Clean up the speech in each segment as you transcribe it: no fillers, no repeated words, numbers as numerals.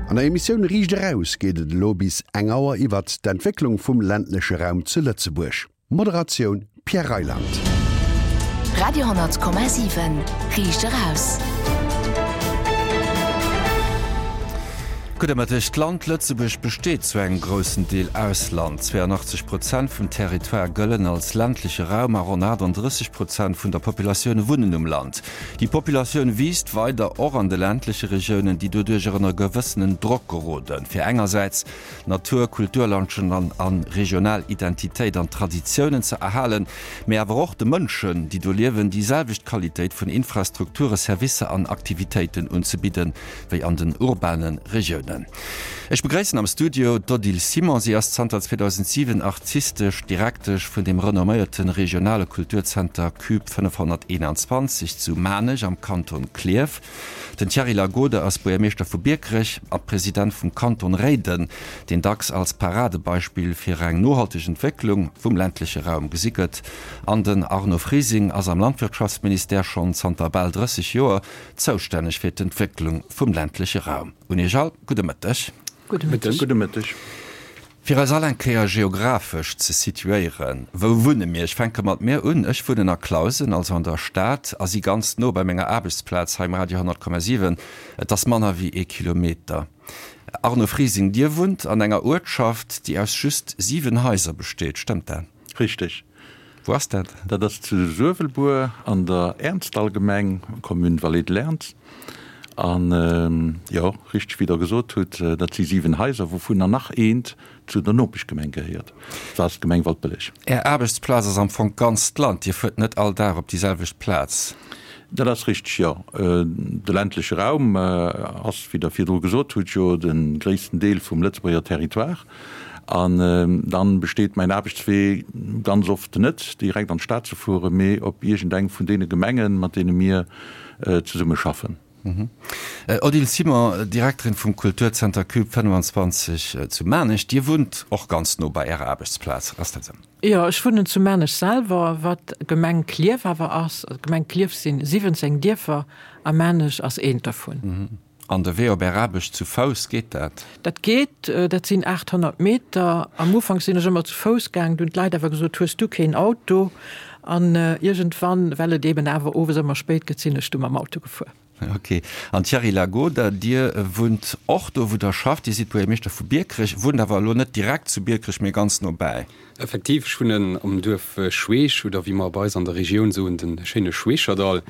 An der Emissioun Riicht Eraus geet et elo bis eng Auer iwwert d'Entwécklung vum ländleche Raum zu Lëtzebuerg. Moderatioun Pierre Reyland. Radio 10,7 Riicht Eraus. Gudde Mëtteg. D'Land Lëtzebuerg besteet zu engem groussen Deel aus Land. 82 Prozent vum Territoire gëllen als ländleche Raum a ronn 38 Prozent vun der Populatioun wunnen um Land. Déi Populatioun wiisst weider, och an de ländleche Regiounen, déi doduercher ënner gewëssenen Drock geroden, fir engersäits Natur, Kulturlandschaften an regional Identitéit an Traditiounen ze erhalen, mee awer och de Mënschen, déi do liewen, déi selwecht Qualitéit vun Infrastrukture, Servicer an Aktivitéiten unzebidden, wéi an den urbane Regiounen. Ech begréissen am Studio d'Odile Simon. Si ass zanter 2007 artistesch Direktesch vun dem renomméierte regionale Kulturzenter Cube 521 zu Maarnech am Kanton Klierf. Den Thierry Lagode ass Buergermeeschter vu Biekerech a President vum Kanton Réiden, deen dacks als Paradebeispill fir eng nohalteg Entwécklung vum ländleche Raum gesi gëtt. An den Arno Frising ass am Landwirtschaftsministère schonn zanter bal 30 Joer Zoustänneg fir d'Entwécklung vum ländleche Raum. Un Iech all gudde Mëtteg. Gudde Mëtteg. Gudde Mëtteg. Fir eis all eng Kéier geographesch ze situéieren, wou wunne mir? Ech fänke mat mir un. Ech wunnen a Clausen, also an der Stad, a si ganz no bei menger Aarbechtsplaz hei um Radio 100,7. Et ass manner wéi ee Kilometer. Arno Frising, Dir wunnt an enger Uertschaft, déi aus just 7 Haiser besteet, stëmmt dat? Richteg. Wou ass dat? Dat ass zu Suewelbuer an der Ernzdallgemeng, Commune Vallée de l'Ernz. An jo, richteg wéi Der gesot hutt, dat si 7 Haiser, wouvunner nach eent zu der Nopeschgemeng gehéiert, dat ass d'Gemeng Waldbëlleg. Är Aarbechtsplaz ass am Fong d'ganzt Land, Dir fuert net all Dag op déi selwecht Plaz? Dat ass richteg, jo. De ländleche Raum ass, wéi Der virdru gesot hutt, jo de gréissten Deel vum Lëtzebuerger Territoire. An dann besteet mäin Aarbechtswee ganz oft net direkt an d'Stad ze fueren, mee op iergendeng vun deene Gemengen, mat deene mir zesumme schaffen. Odile Simon, Direkterin vum Kulturzenter Cube 25 zu Maarnech, Dir wunnt och ganz no bei Ärer Aarbechtsplaz, ass dat esou? Jo, ech wunnen zu Maarnech selwer, wat Gemeng Klierf awer ass. D'Gemeng Klierf sinn 17 Dierfer a Maarnech ass eent dervun. An de Wee op Är Aarbecht zu Fouss, geet dat? Dat geet, dat sinn 800 Meter. Am Ufank sinn ech ëmmer zu Fouss gaang, du hunn d'Leit awer gesot, Hues du keen Auto? An iergendwann, well et eben awer owes ëmmer spéit gëtt, sinn ech du mam Auto gefuer. Ok. An Thierry Lagoda, Dir wunnt och do, wou Der schafft. Dir sidd Buergermeeschter vu Biekerech, wunnt awer elo net direkt zu Biekerech, mee ganz nobäi. Effektiv, ech wunnen am Duerf Schweech, oder wéi mer bei eis an der Regioun soen, de schéine Schweecherdall.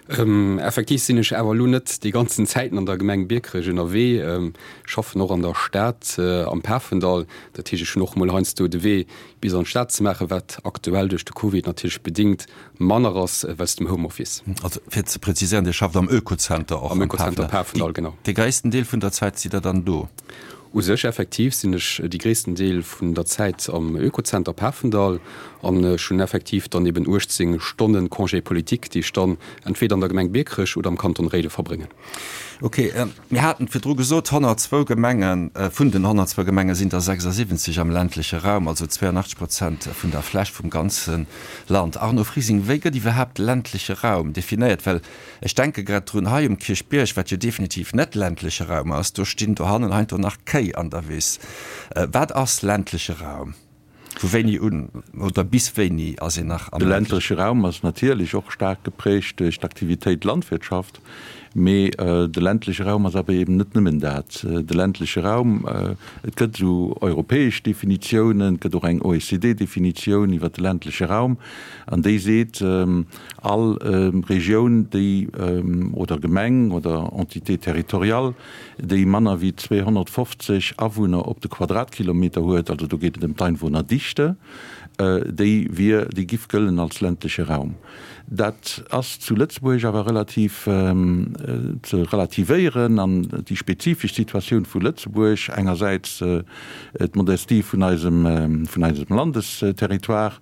Effektiv sinn ech awer elo net déi ganzen Zäiten an der Gemeng Biekerech ënnerwee, schaffen och an der Stad am Pafendall. Dat heescht, ech hunn och mol heiansdo de Wee bis an d'Stad ze maachen, wat aktuell duerch de Covid natierlech bedéngt manner ass wéinst dem Homeoffice. Also fir ze präziséieren, Dir schafft am Oekozenter och am Pafendall, genau. Dee gréissten Deel vun der Zäit sidd Der dann do? U sech effektiv sinn ech déi gréissten Deel vun der Zäit am Oekozenter Pafendall an ech hunn effektiv dann eben 18 Stonnen Congé politique, déi ech dann entweder an der Gemeng Biekerech oder am Kanton Réiden verbréngen. Ok, mir haten et virdru gesot, 102 Gemengen, vun den 102 Gemenge sinn der 76 am ländleche Raum, also 82 Prozent vun der Fläch vum ganze Land. Arno Frising, wéi gëtt iwwerhaapt ländleche Raum definéiert? Well Ech denke grad drun, hei um Kierchbierg, wat jo definitiv net ländleche Raum ass, do stinn dohannen heiansdo nach Kéi an der Wiss. Wat ass ländleche Raum? Vu wéini un oder bis wéini ass een nach am De ländleche Raum ass natierlech och staark geprägt duerch d'Aktivitéit Landwirtschaft, mee de ländleche Raum ass awer eben net nëmmen dat. De ländleche Raum, et gëtt esou europäesch Definitiounen, et gëtt och eng OECD-Definitioun iwwer de ländleche Raum, an déi seet, All Regioun, déi, oder Gemeng oder Entité territoriale, déi manner wéi 250 Awunner op de Quadratkilometer huet, also do geet et ëm d'Einwohnerdichte, déi wier, déi giff gëllen als ländleche Raum. Dat ass zu Lëtzebuerg awer relativ ze relativéieren an déi spezifesch Situatioun vu Lëtzebuerg, engersäits d'Modestie vun eisem, vun eisem Landesterritoire,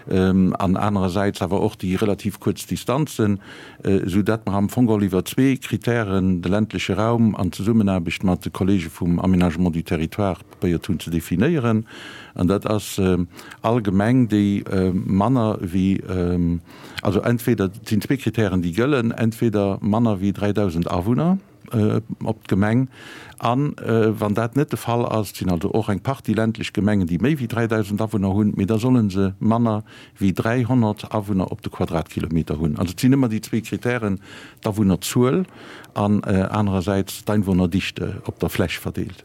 an anerersäits awer och déi relativ kuerz Distanzen, esou dat mer am Fong geholl iwwer zwee Kritären de ländleche Raum an Zesummenaarbecht mat de Kollege vum Aménagement du territoire probéiert hunn ze definéieren. An dat ass all Gemeng, déi manner wéi, also entweder, et sinn zwee Kritären, déi gëllen, entweder manner wéi 3.000 Awunner. op d'Gemeng. A wann dat net de Fall ass, et sinn also och eng Partie ländlech Gemengen, déi méi wéi 3.000 Awunner hunn, mee da solle se manner wéi 300 Awunner op de Quadratkilometer hunn. Also et sinn ëmmer déi zwee Kritären, d'Awunnerzuel an anerersäits d'Einwohnerdichte op der Fläch verdeelt.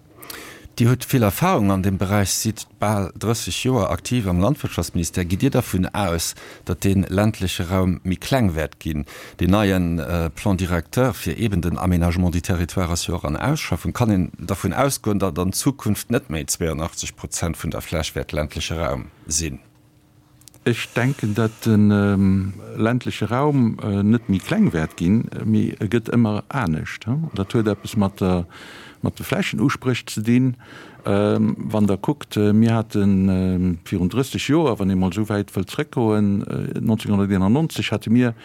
Dir hutt vill Erfahrung an deem Beräich, sidd bal 30 Joer aktiv am Landwirtschaftsministère. Gitt Dir dervun aus, datt dee ländleche Raum méi kleng wäert ginn? Deen neie Plan directeur fir eeben den Aménagement du territoire ass jo och an Ausschaffung. Kann een dervun ausgoen, datt an Zukunft net méi 82 Prozent vun der Fläch wäert ländleche Raum sinn? Ech denken, datt de ländleche Raum net méi kleng wäert ginn, mee e gëtt ëmmer anescht. Dat huet eppes mat der, mat de Flächenuspréch ze dinn. Wann Der kuckt, mir hate virun 30 Joer, wann ee mol esou wäit wëllt zrëckgoen, 1991 hate mir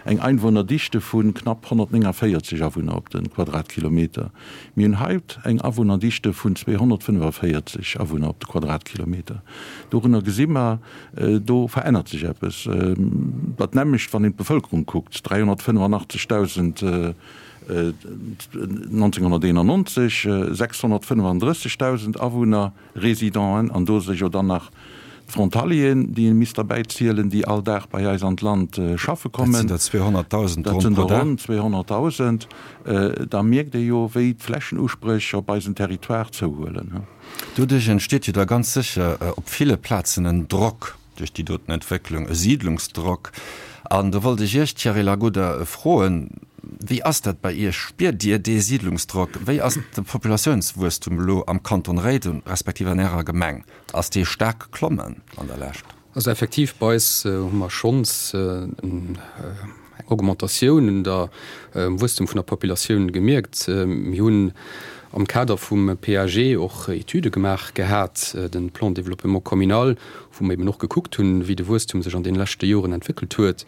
eng Einwohnerdichte vu knapp 149 Awunner op de Quadratkilometer. Mir hunn haut eng Awunnerdichte vun 245 Awunner op de Quadratkilometer. Dorunner gesi mer, do verännert sech eppes. Dat nämmlecht, wann een d'Bevëlkerung kuckt, 385.000 1991, 635.000 Awunner, Résidenten, an do si jo dann nach d'Frontalieren, déi ee misst derbäi zielen, déi all Dag bei eis an d'Land schaffe kommen. Dat sinn der 200.000 Dat sinn der ronn 200.000. Da mierkt ee jo, wéi d'Flächenuspréch op eisem Territoire zouhuelen. Doduerch entsteet jo da ganz sécher op ville Plazen en Drock duerch déi doten Entwécklung, e Siidlungsdrock. An do wollt ech Iech, Thierry Lagoda, froen, Wéi ass dat bei Iech? Spiert Dir dee Siidlungsdrock? Wéi ass de Populatiounswuesstum elo am Kanton Réiden, respektiv an Ärer Gemeng? Ass dee staark geklommen an der Lescht? Also effektiv, bei eis hu mer schonns eng Augmentatioun un der Wuesstum vun der Populatioun gemierkt. Mir hunn am Kader vum PAG och Etüde gemaach gehat, de Plan de développement communal, wou mer eben och gekuckt hunn, wéi de Wuesstum sech an deene leschte Joren entwéckelt huet.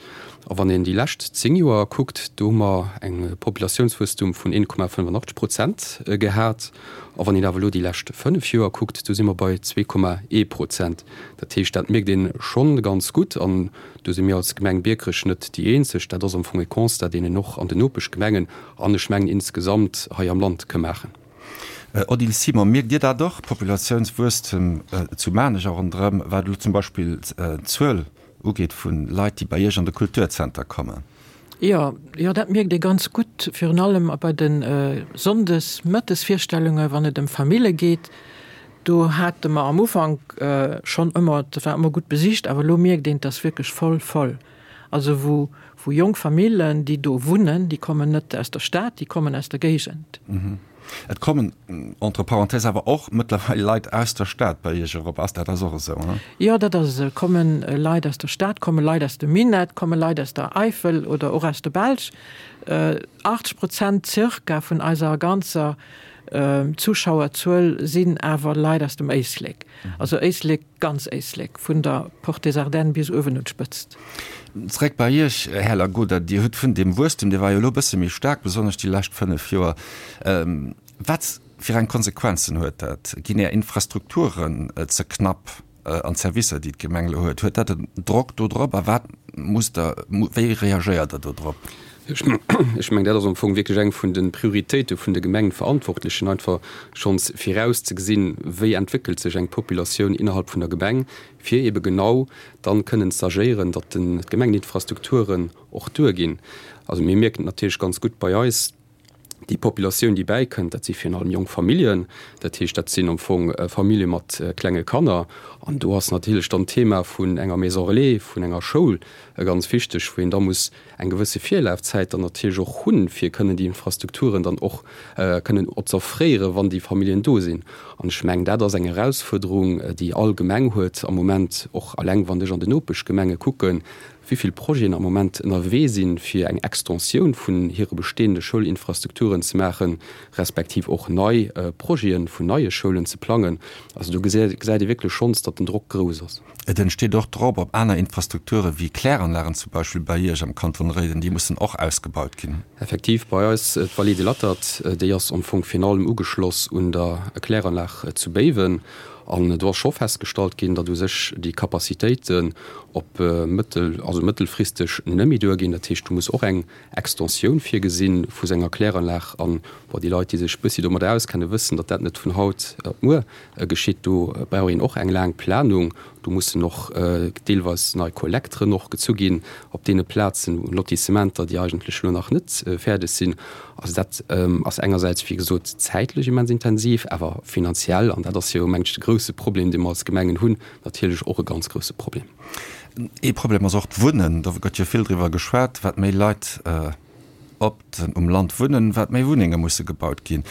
A wann een déi lescht 10 Joer kuckt, do hu mer eng Populatiounswuesstum vun 1,85 Prozent gehat. A wann een awer elo déi lescht 5 Joer kuckt, do si mer bei 2,1 Prozent. Dat heescht, dat mierkt ee schonn ganz gutt. An do si mir als Gemeng Biekerech net déi eenzeg. Dat ass am Fong e Constat, deen een och an den Nopeschgemengen an ech mengen insgesamt hei am Land ka maachen. Odile Simon, Mierkt Dir dat och, Populatiounswuesstem zu Maarnech a ronderëm, wat elo zum Beispill d'Zuel ugeet vu Leit, déi bei Iech an de Kulturzenter kommen? Jo, jo, dat mierkt ee ganz gutt, virun allem bei de Sonndes-Mëttesvirstellunge wann et ëm Famille geet. Do hate mer am Ufank schonn ëmmer, dat war ëmmer gutt besicht, awer elo mierkt een, et ass wierklech voll, voll. Also wou, wou jonk Famillen, déi do wunnen, déi kommen net aus der Stad, déi kommen aus der Géigend. Et kommen, entre parenthèses, awer och mëttlerweil Leit aus der Stad bei Iech erop. Ass dat ass och esou, he? Jo, dat ass esou. Et komme Leit aus der Stad, komme Leit aus dem Minett, komme Leit aus der Eifel oder och aus der Belsch. 80 Prozent zirka vun eiser ganzer Zuschauerzuel sinn awer Leit aus dem Éislek. Also Éislek. Ganz Éislek, vun der Porte des Ardennes bis uewen un d'Spëtzt. Zréck bei Iech, Här Lagoda. Dir hutt vun deem Wuesstem, dee war jo elo e bësse méi staark, besonnesch déi lescht 5 Joer. Wat fir eng Konsequenzen huet dat? Ginn Är Infrastrukturen ze knapp an d'Servicer, déi d'Gemeng elo huet? Huet dat en Drock do drop a wat musst Der, wéi reagéiert Der do drop? Ech mengen, dat ass am Fong wierklech eng vun de Prioritéite vun de Gemengenverantwortlechen, einfach schonns virauszegesinn, wéi entwéckelt sech eng Populatioun innerhalb vun der Gemeng, fir ebe genau dann kënnen z'agéieren, datt d'Gemengeninfrastrukturen och duerginn. Also mir mierken et natierlech ganz gutt bei eis, Déi Populatioun, déi bäikënnt, dat si virun allem jonk Familljen. Dat heescht, dat sinn am Fong Famillje mat klenge Kanner. An do ass natierlech dann d'Thema vun enger Maison relais, vun enger Schoul ganz wichteg, wou een da muss eng gewësse Virlafzäit dann natierlech och hunn, fir kënnen déi Infrastrukturen dann och kënnen z'offréieren, wann déi Familljen do sinn. An ech mengen, dat ass eng Erausfuerderung, déi all Gemeng huet am Moment, och eleng wann ech an den Nopeschgemenge kucken, wéi vill Projeten am Moment ënnerwee sinn, fir eng Extensioun vun hire bestehende Schoulinfrastrukturen ze maachen, respektiv och nei Projete vun neie Schoulen ze plangen. Also do gesäit ee wierklech schonns, datt den Drock grouss ass. Et entsteet och Drock op aner Infrastrukture wéi Kläranlagen zum Beispill bei Iech am Kanton Réiden, déi mussen och ausgebaut ginn. Effektiv, bei eis d'Vallée de l'Attert, déi ass am Fong virun allem ugeschloss un der Kläranlag zu Béiwen. An do ass scho festgestallt ginn, datt u sech déi Capacitéiten op mëttel, also mëttelfristeg net méi duerginn. Dat heescht, do muss och eng Extensioun virgesinn vu senger Kläranlag. An, bon, déi Leit, déi sech e bëssi domadder auskennen, wëssen, datt dat net vun haut op muer geschitt. Do brauch een och eng laang Planung. Do mussen och deelweis nei Kollekteren och gezu ginn op deene Plazen, Lotissementer, déi eigentlech elo nach net fäerdeg sinn. Also dat ass engersäits, wéi gesot, zäitlech immens intensiv, awer finanziell, an dat ass jo, mengen ech, de grouse Problem, dee mer als Gemengen hunn, natierlech och e ganz grouse Problem. Ee Problem ass och d'Wunnen. Do gëtt jo vill driwwer geschwat, wat méi Leit op um Land wunnen, wat méi Wunnenge musse gebaut ginn.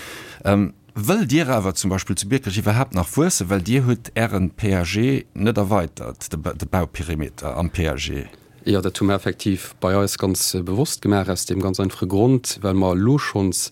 Wëllt Dir awer zum Beispill zu Biekerech iwwerhaapt nach wuessen? Well Dir hutt Ären PAG net erweitert, de Bauperimeter am PAG. Jo, dat hu mer effektiv bei eis ganz bewosst gemaach, aus deem ganz einfache Grond, well mer elo schonns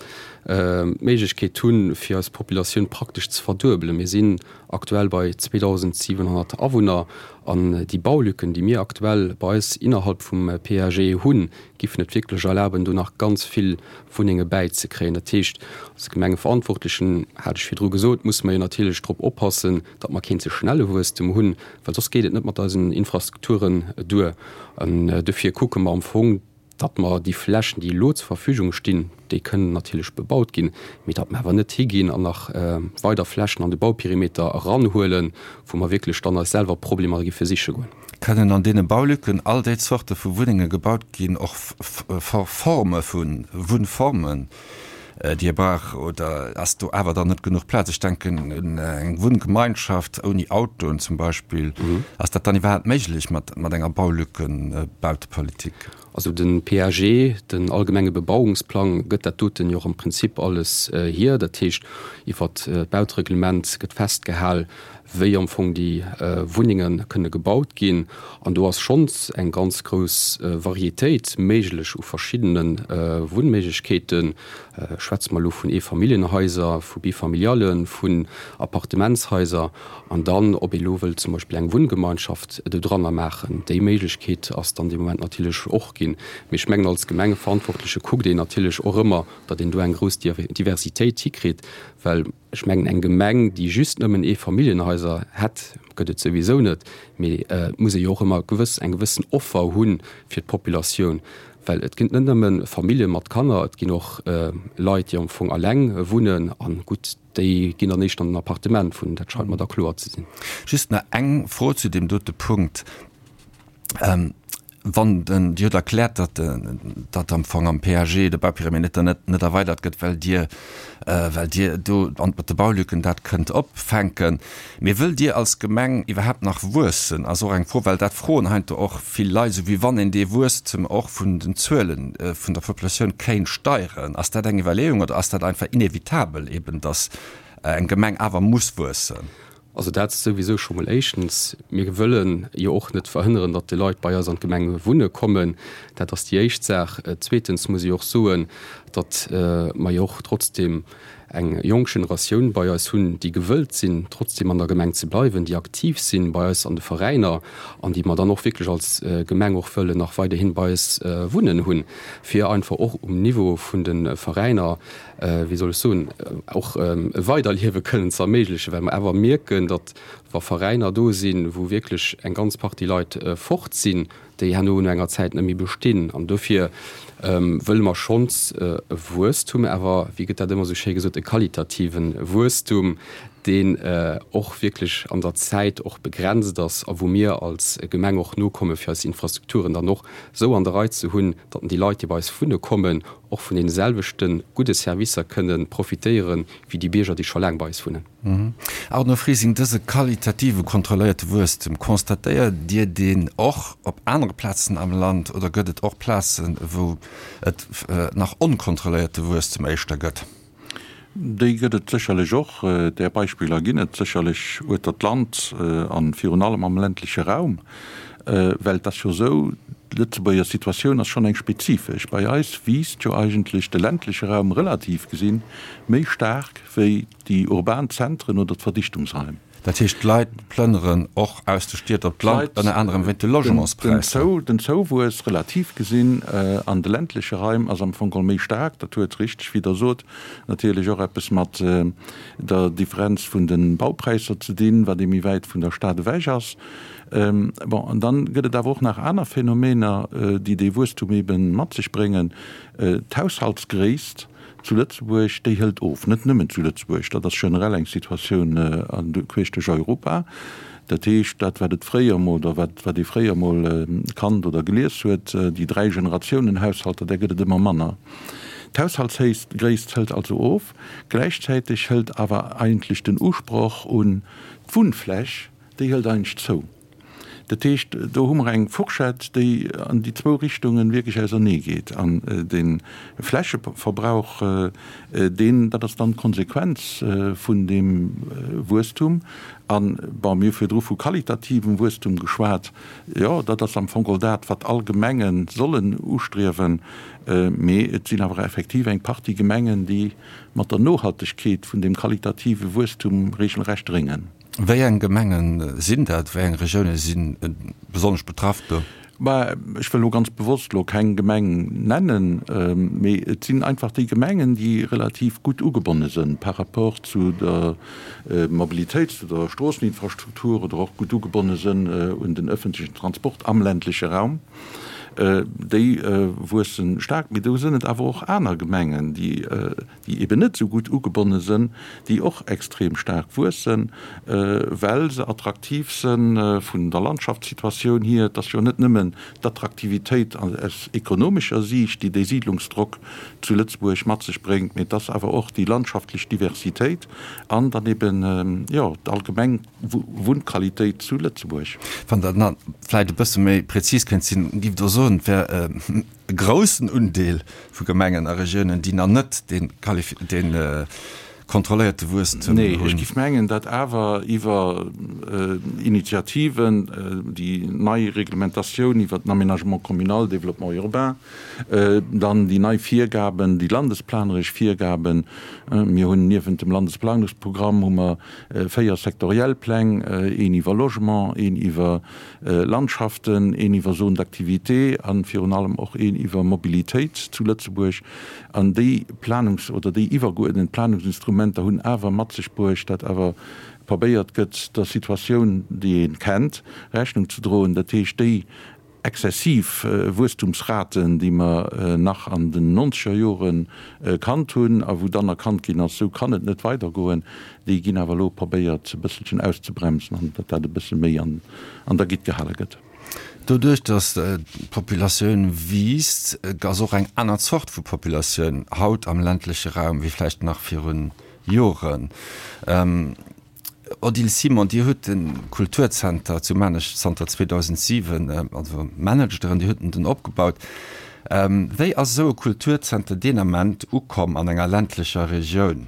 d'Méiglechkeet hunn, fir eis Populatioun praktesch ze verduebelen. Mir sinn aktuell bei 2.700 Awunner an déi Baulücken, déi mir aktuell bei eis innerhalb vum PAG hunn, giffen et wierklech erlaben, do nach ganz vill Wunnenge bäizekréien. Dat heescht, als Gemengeverantwortlechen, hat ech virdru gesot, musse mer jo natierlech drop oppassen, datt mer keen ze schnelle Wuesstem hunn, well soss geet et net mat eisen Infrastrukturen duer. An dofir kucke mer am Fong, datt mer déi Flächen, déi elo zur Verfügung stinn, déi kënnen natierlech bebaut ginn, mee datt mer awer net higinn an nach weider Flächen an de Bauperimeter eranhuelen, wou mer wierklech dann eis selwer Problemer giffe siche goen. Kënnen an deene Baulücken all déi Zorte vu Wunnenge gebaut ginn, och Forme vu Wunnformen, déi ee brauch, oder ass do awer dann net genuch Plaz? Ech denken un eng Wunngemeinschaft ouni Autoen zum Beispill. Ass dat dann iwwerhaapt méiglech mat enger Baulückenbautepolitik? Also de PAG, den allgemenge Bebauungsplang, gëtt dat doten jo och am Prinzip alles hier. Dat heescht, iwwert d'Bautereglement gëtt festgehal, wéi am Fong déi Wunnenge kënne gebaut ginn. An do ass schonns eng ganz grouss Varietéit méiglech u verschiddene Wunnméiglechkeeten. Schwätze mer elo vun Eefamilljenhaiser, vu Bifamiliallen, vun Appartementshaiser. An dann, ob ee elo wëllt zum Beispill eng Wunngemeinschaft dodranner maachen, déi Méiglechkeet ass dann dee Moment natierlech och ginn. Mee ech mengen, als Gemengeverantwortleche kuckt een natierlech och ëmmer, datt een do eng grouss Diversitéit hikritt, well ech mengen, eng Gemeng, déi just nëmmen Eefamilljenhaiser hätt, gëtt et souwisou net, mee et muss ee jo och ëmmer gewëss eng gewëssen Offer hu fir d'Populatioun, well et ginn net nëmme Famillje mat Kanner, et ginn och Leit, déi am Fong alleng wunnen a gutt, déi ginn dann éischter an den Appartement wunnen, dat scheit mer da kloer ze sinn. Just nach eng Fro zu deem dote Punkt. Wann den, Dir hutt erkläert, datt datt am Fong am PAG de Bauperimeter net net erweidert gëtt, well Dir well Dir do an mat de Baulücken dat kënnt opfänken. Mee wëllt Dir als Gemeng iwwerhaapt nach wuessen, ass och eng Fro, well dat froen heiansdo och vill Leit, esou wéi wann een dee Wuesstem och vun den Zuele vun der Populatioun kéint steieren. Ass dat eng Iwwerleeung oder ass dat einfach inevitabel eben, datt eng Gemeng awer muss wuessen? Also dat souwisou scho mol éischtens. Mir wëlle jo och net verhënneren, datt déi Leit bei eis an d'Gemeng wunne kommen. Dat ass déi éischt Saach. Zweetens muss ech och soen, datt mer jo och trotzdem eng jonk Generatioun bei eis hunn, déi gewëllt sinn, trotzdem an der Gemeng ze bleiwen, déi aktiv sinn bei eis an de Veräiner an déi mer dann och wierklech als Gemeng och wëllen nach weiderhin bei eis wunnen hunn, fir einfach och um Niveau vun de Veräiner, wéi soll ech soen, och e Weiderliewe kënnen ze erméiglechen, well mer awer mierken, datt wa Veräiner do sinn, wou wierklech eng ganz Partie Leit fort sinn, déi herno no enger Zäit net méi bestinn. An dofir wëlle mer schonns e Wuesstum, awer, wéi gëtt dat ëmmer esou schéi gesot, e qualitative Wuesstum, deen och wierklech an der Zäit och begrenzt ass a wou mir als Gemeng och nokomme fir eis Infrastrukturen dann och esou an der Rei ze hunn, datt déi Leit, déi bei eis wunne kommen, och vun deene selwechte gudde Servicer kënne profitéiere wéi déi Bierger, déi scho laang bei eis wunnen. Arno Frising, Dëse qualitative kontrolléierte Wuesstem, constatéiert Dir deen och op anere Plazen am Land oder gëtt et och Plazen, wou et nach onkontrolléierte Wuesstem éischter gëtt? Déi gëtt et sécherlech och. Där Beispiller ginn et sécherlech ueter d'Land a virun allem am ländleche Raum. Well et ass jo esou, d'Lëtzebuerger Situatioun ass schonn eng spezifesch. Bei eis wiisst jo eigentlech de ländleche Raum relativ gesinn méi staark wéi déi urban Zentren oder d'Verdichtungsraim. Dat heescht, d'Leit plënneren och aus de Stied op d'Land, ënner anerem wéint de Logementspräisser. Den Zouwuess, relativ gesinn, an de ländleche Raim ass am Fong geholl méi staark. Dat huet, richteg wéi Der sot, natierlech och eppes mat der Differenz vun de Baupräisser ze dinn, wat ee méi wäit vun der Stad ewech ass. Bon, an dann gëtt et awer och nach aner Phänomener, déi dee Wuesstum ebe mat sech bréngen. D'Haushaltsgréisst zu Lëtzebuerg, déi hëlt of. Net nëmmen zu Lëtzebuerg, dat ass generell eng Situatioun queesch duerch Europa. Dat heescht, dat wat et fréier emol, oder wat wat ee fréier emol kannt oder gelies huet, déi Dräi-Generatiounen-Haushalter, där gëtt et ëmmer manner. D'Haushaltsgréisst hëlt also of. Gläichzäiteg hëlt awer eigentlech den Usproch un d'Wunnfläch, déi hëlt eigentlech zou. Dat heescht, do hu mer eng Fourchette, déi an déi zwou Richtungen wierklech ausernee geet. An de Flächeverbrauch, deen, dat ass dann d'Konsequenz vun deem Wuesstum. An, bon, mir hu virdru vu qualitativem Wuesstum geschwat. Jo, dat ass am Fong geholl dat, wat all Gemenge sollen ustriewen. Mee et sinn awer effektiv eng Partie Gemengen, déi mat der Nohaltegkeet vun deem qualitative Wuesstum regelrecht réngen. Wéi eng Gemenge sinn dat? Wéi eng Regioune si besonnesch betraff do? Mä ech wëll elo ganz bewosst elo keng Gemeng nennen, mee et sinn einfach déi Gemengen, déi relativ gutt ugebonne sënn par rapport zu der Mobilitéit, zu der Stroosseninfrastruktur oder och gutt ugebonne sënn un den öffentlichen Transport am ländleche Raum. Déi wuesse staark. Mee do sënn et awer och aner Gemengen, déi déi eben net esou gutt ugebonne sënn, déi och extrem staark wuessen, well se attraktiv sënn vun der Landschaftssituatioun hier. Et ass jo net nëmmen d'Attraktivitéit aus ekonomescher Siicht, déi dee Siidlungsdrock zu Lëtzebuerg mat sech bréngt, mee et ass awer och déi landschaftlech Diversitéit an dann eben, jo, d'allgemeng Wunnqualitéit zu Lëtzebuerg. Wann Der nach vläicht e bësse méi prezis kënnt sinn, giff Der soen, et wär e groussen Undeel vu Gemengen a Regiounen, déi nach net dee kontrolléierte Wuesstem hunn. Nee, ech géif mengen, datt awer iwwer Initiativen, déi nei Reglementatioun iwwert den Aménagement communal, Développement urbain, dann déi nei Virgaben, déi landesplaneresch Virgaben, mir hunn niewent dem Landesplanungsprogramm hu mer 4 sektoriell Pläng, een iwwer Logement, een iwwer Landschaften, een iwwer Zones d'activité a virun allem och een iwwer Mobilitéit zu Lëtzebuerg. An déi Planungs oder déi iwwergeuerdent Planungsinstrumenter hunn awer mat sech bruecht, datt awer probéiert gëtt, der Situatioun, déi ee kennt, Rechnung ze droen. Dat heescht, déi exzessiv Wuesstumsraten, déi mer nach an den nonzeger Jore kannt hunn a wou dann erkannt ginn ass, esou kann et net weidergoen, déi ginn awer elo probéiert e bësselchen auszebremsen an datt dat e bësse méi an der Gitt gehale gëtt. Doduerch, datt d'Populatioun wiisst, ass och eng aner Zort vu Populatioun haut am ländleche Raum wéi vläicht nach virun Joren. Odile Simon, Dir hutt de Kulturzenter zu Maarnech zanter 2007, also managt Der en, Dir hutt en den opgebaut. Wéi ass esou e Kulturzenter deen Ament ukomm an enger ländlecher Regioun?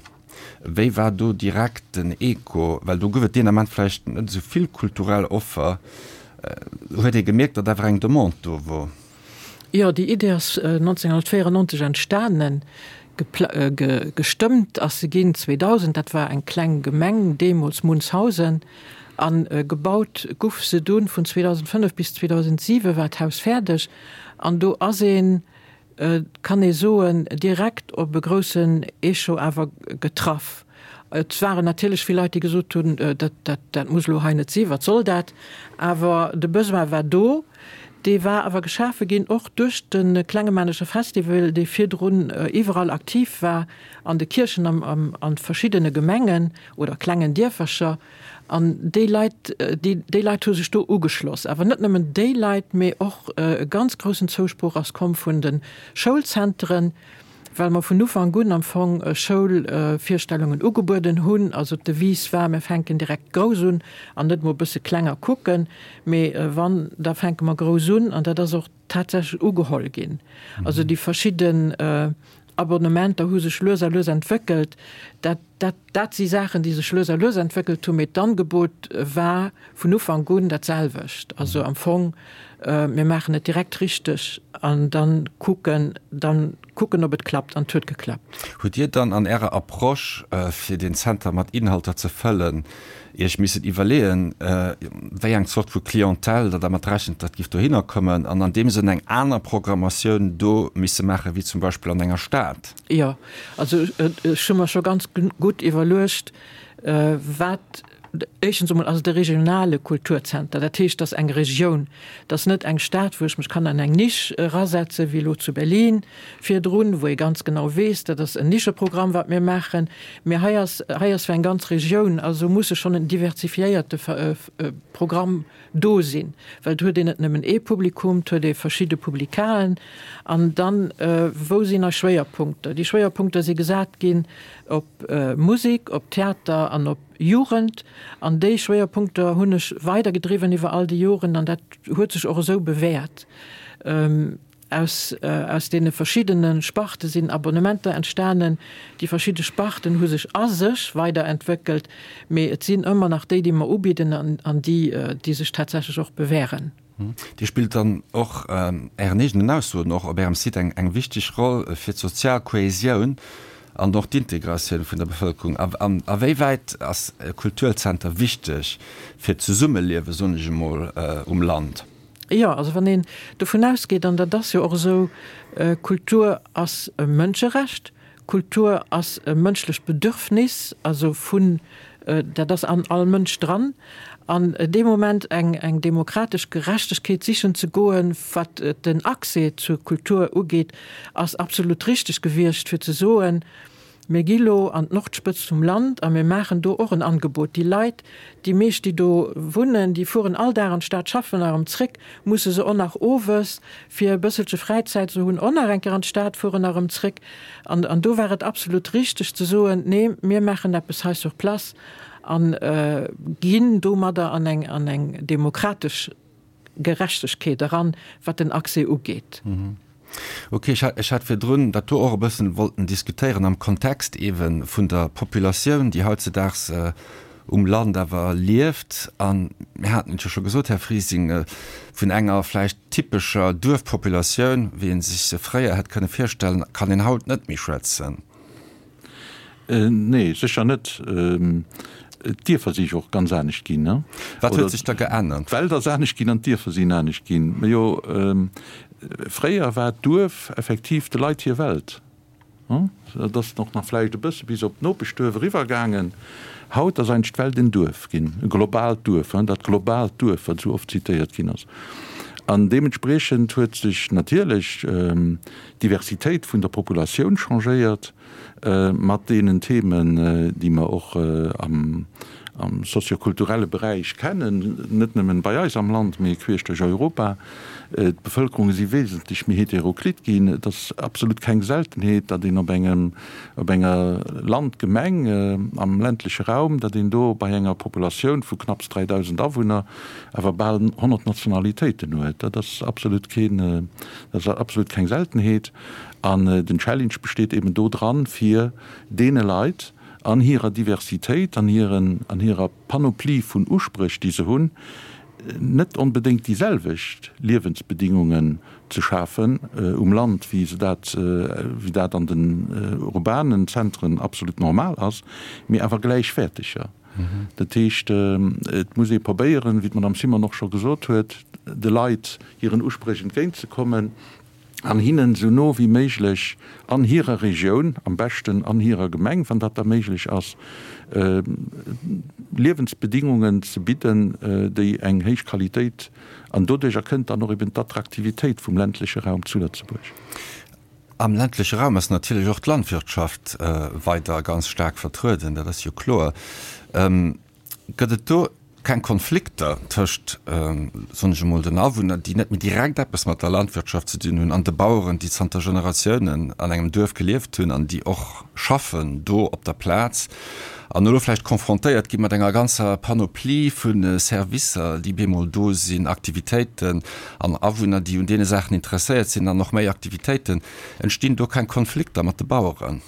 Wéi war do direkt den Echo? Well do gouf et deen Ament vläicht net esou vill kulturell Offer. Huet ee gemierkt, datt awer eng Demande do wor? Jo, déi Idee ass 1994 entstanen. Gestëmmt ass se ginn 2000. Dat war eng kleng Gemeng deemools, Munzhausen. A gebaut guff se dunn vun 2005 bis 2007 war d'Haus fäerdeg. An do ass een, kann ee soen, direkt op e groussen Echo awer getraff. Et waren natierlech vill Leit, déi gesot hunn, dat, dat, dat muss elo hei net sinn, wat soll dat? Awer de Besoin war do. Dee war awer geschafe ginn och duerch de Klengemanescher Festival, dee virdrun iwwerall aktiv war, an de Kierchen, am, an verschiddene Gemengen oder klengen Dierfercher. An déi Leit, déi, déi Leit hu sech do ugeschloss. Awer net nëmmen déi Leit, mee och e ganz groussen Zousproch ass komm vun de Schoulzenteren, well mer vun Ufank un am Fong Schoulvirstellungen ugebueden hunn. Also d'Devise war, mir fänken direkt grouss un an net mol e bësse kleng a kucken, mee wann, da fänke mer grouss un. An dat ass och tatsächlech ugeholl ginn. Also déi verschidden Abonnementer hu sech lues a lues entwéckelt. Dat, dat, dat si Saachen, déi sech lues a lues entwéckelt hunn, mee d'Angebot war vun Ufank un dat selwecht. Also am Fong. Mir maachen et direkt richteg an dann kucken, dann kucken ob et klappt an et huet geklappt. Hutt Dir dann an Ärer Approche, fir deen Zenter mat Inhalter ze fëllen, Iech missen iwwerleeën, wéi eng Zort vu Clientèle Der dermat rechent, datt giff dohinner kommen an an deem Sënn eng aner Programmatioun do misse maache wéi zum Beispill an enger Stad? Jo, also ech hu mer scho ganz gutt iwwerluecht, wat Éischtens emol ass et e regionale Kulturzenter, dat heescht, et ass eng Regioun, et ass net eng Stad, wou ech mech kann an eng Nisch erasetzen, wéi elo zu Berlin virdrun, wou ee ganz genau weess, dat ass en Nischeprogramm, wat mir maachen. Mee hei ass, hei ass fir eng ganz Regioun, also muss e schonn en diversifiéierte Programm do sinn, well et huet een net nëmmen ee Publikum, et huet ee verschidde Publikaen. An dann, wou sinn eis Schwéierpunkter? Déi Schwéierpunkter si gesat ginn op Musek, op Theater an op Jugend. An déi Schwéierpunkter hunn ech weidergedriwwen iwwer all déi Joren an dat huet sech och esou bewäert. Aus aus deene verschiddene Sparte sinn Abonnementer entstanen. Déi verschidde Sparten hu sech a sech weiderentwéckelt, mee et sinn ëmmer nach déi, déi mer ubidden an an déi, déi sech tatsächlech och bewären. Dir spillt dann och, Ären eegenen Aussoen och op Ärem Site, eng eng wichteg Roll fir d'sozial Kohesioun an och d'Integratioun vun der Bevëlkerung. A a wéi wäit ass e Kulturzenter wichteg fir d'Zesummeliewe, soen ech emol, um Land? Jo, also wann een dovun ausgeet, an dat ass jo och esou, Kultur ass e Mënscherecht, Kultur ass e mënschlecht Bedürfnis, also vun, dat ass an all Mënsch dran, an dee Moment eng eng demokratesch Gerechtegkeet sichen ze goen, wat den Accès zur Kultur ugeet, ass absolut richteg gewiescht, fir ze soen, Mir gi lo an d'Nordspëtzt vum Land a mir maachen do och en Angebot. Déi Leit, déi meescht, déi do wunnen, déi fueren all Dag an d'Stad schaffen a erëm zréck, musse se och nach owes, fir e bësselche Fräizäit ze hunn, och nach eng Kéier an d'Stad fueren a erëm zréck. An an do war et absolut richteg ze soen, Nee, mir maachen eppes hei sur place a ginn domadder an eng an eng demokratesch Gerechtegkeet eran, wat den Accès ugeet. Ok, ech hat virdrun dat do och e bëssen wollten diskutéieren am Kontext eebe vun der Populatioun, déi hautzedaags um Land awer lieft. A mir haten et jo scho gesot, Här Frising, vun enger vläicht typescher Duerfpopulatioun, wéi ee sech se fréier hätt kënne virstellen, kann een haut net méi schwätzen. Nee, sécher net. D'Dierfer si jo och ganz anescht ginn. Wat huet sech da geännert? D'Welt ass anescht ginn an d'Dierfer sinn anescht ginn. Majo, fréier war d'Duerf effektiv de Leit hir Welt. Dat ass och nach vläicht e bësse bis op d'Nopeschduerf eriwwer gaangen. Haut ass eigentlech d'Welt en Duerf ginn, e globaalt Duerf, dat globaalt Duerf, wat esou oft zitéiert ginn ass. An deementspriechend huet sech natierlech d'Diversitéit vun der Populatioun changéiert. mat deenen Themen, déi mer och am soziokulturelle Beräich kennen, net nëmmen bei eis am Land, mee queesch duerch Europa. D'Bevëlkerunge si wesentlech méi heteroklit ginn. Et ass absolut keng Seltenheet, datt een op engem, op enger Landgemeng am ländleche Raum, datt een do bei enger Populatioun vu knapps 3.000 Awunner awer bal 100 Nationalitéiten huet. Dat ass absolut keen, dat ass absolut keng Seltenheet. An den Challenge besteet eben do dran, fir deene Leit an hirer Diversitéit, an hiren, an hirer Panoplie vun Uspréch, déi se hunn, net onbedéngt déi selwecht Liewensbedingungen ze schafen um Land, wéi se dat, wéi dat an den urbanen Zentren absolut normal ass, mee awer gläichwäerteger. Dat heescht, et muss ee probéieren, wéi d'Madame Simon och scho gesot huet, de Leit hiren Uspréch entgéintzekommen. an hinnen esou no wéi méiglech an hirer Regioun, am beschten an hirer Gemeng, wann dat da méiglech ass, Liewensbedingungen ze bidden, déi eng héich Qualitéit, an doduercher kënnt dann och eben d'Attraktivitéit vum ländleche Raum zu Lëtzebuerg. Am ländleche Raum ass natierlech och d'Landwirtschaft weider ganz staark vertrueden, dat ass jo kloer. Gëtt et do keng Konflikter tëscht, soen ech emol, den Awunner, déi net méi direkt eppes mat der Landwirtschaft ze dinn hunn, an de Baueren, déi zanter Generatiounen an engem Duerf gelieft hunn an déi och schaffen do op der Plaz an elo vläicht confrontéiert gi mat enger ganzer Panoplie vu Servicer, déi bemol do sinn, Aktivitéiten an Awunner, déi un deene Saachen interesséiert sinn an och méi Aktivitéiten. Entstinn do keng Konflikter mat de Baueren?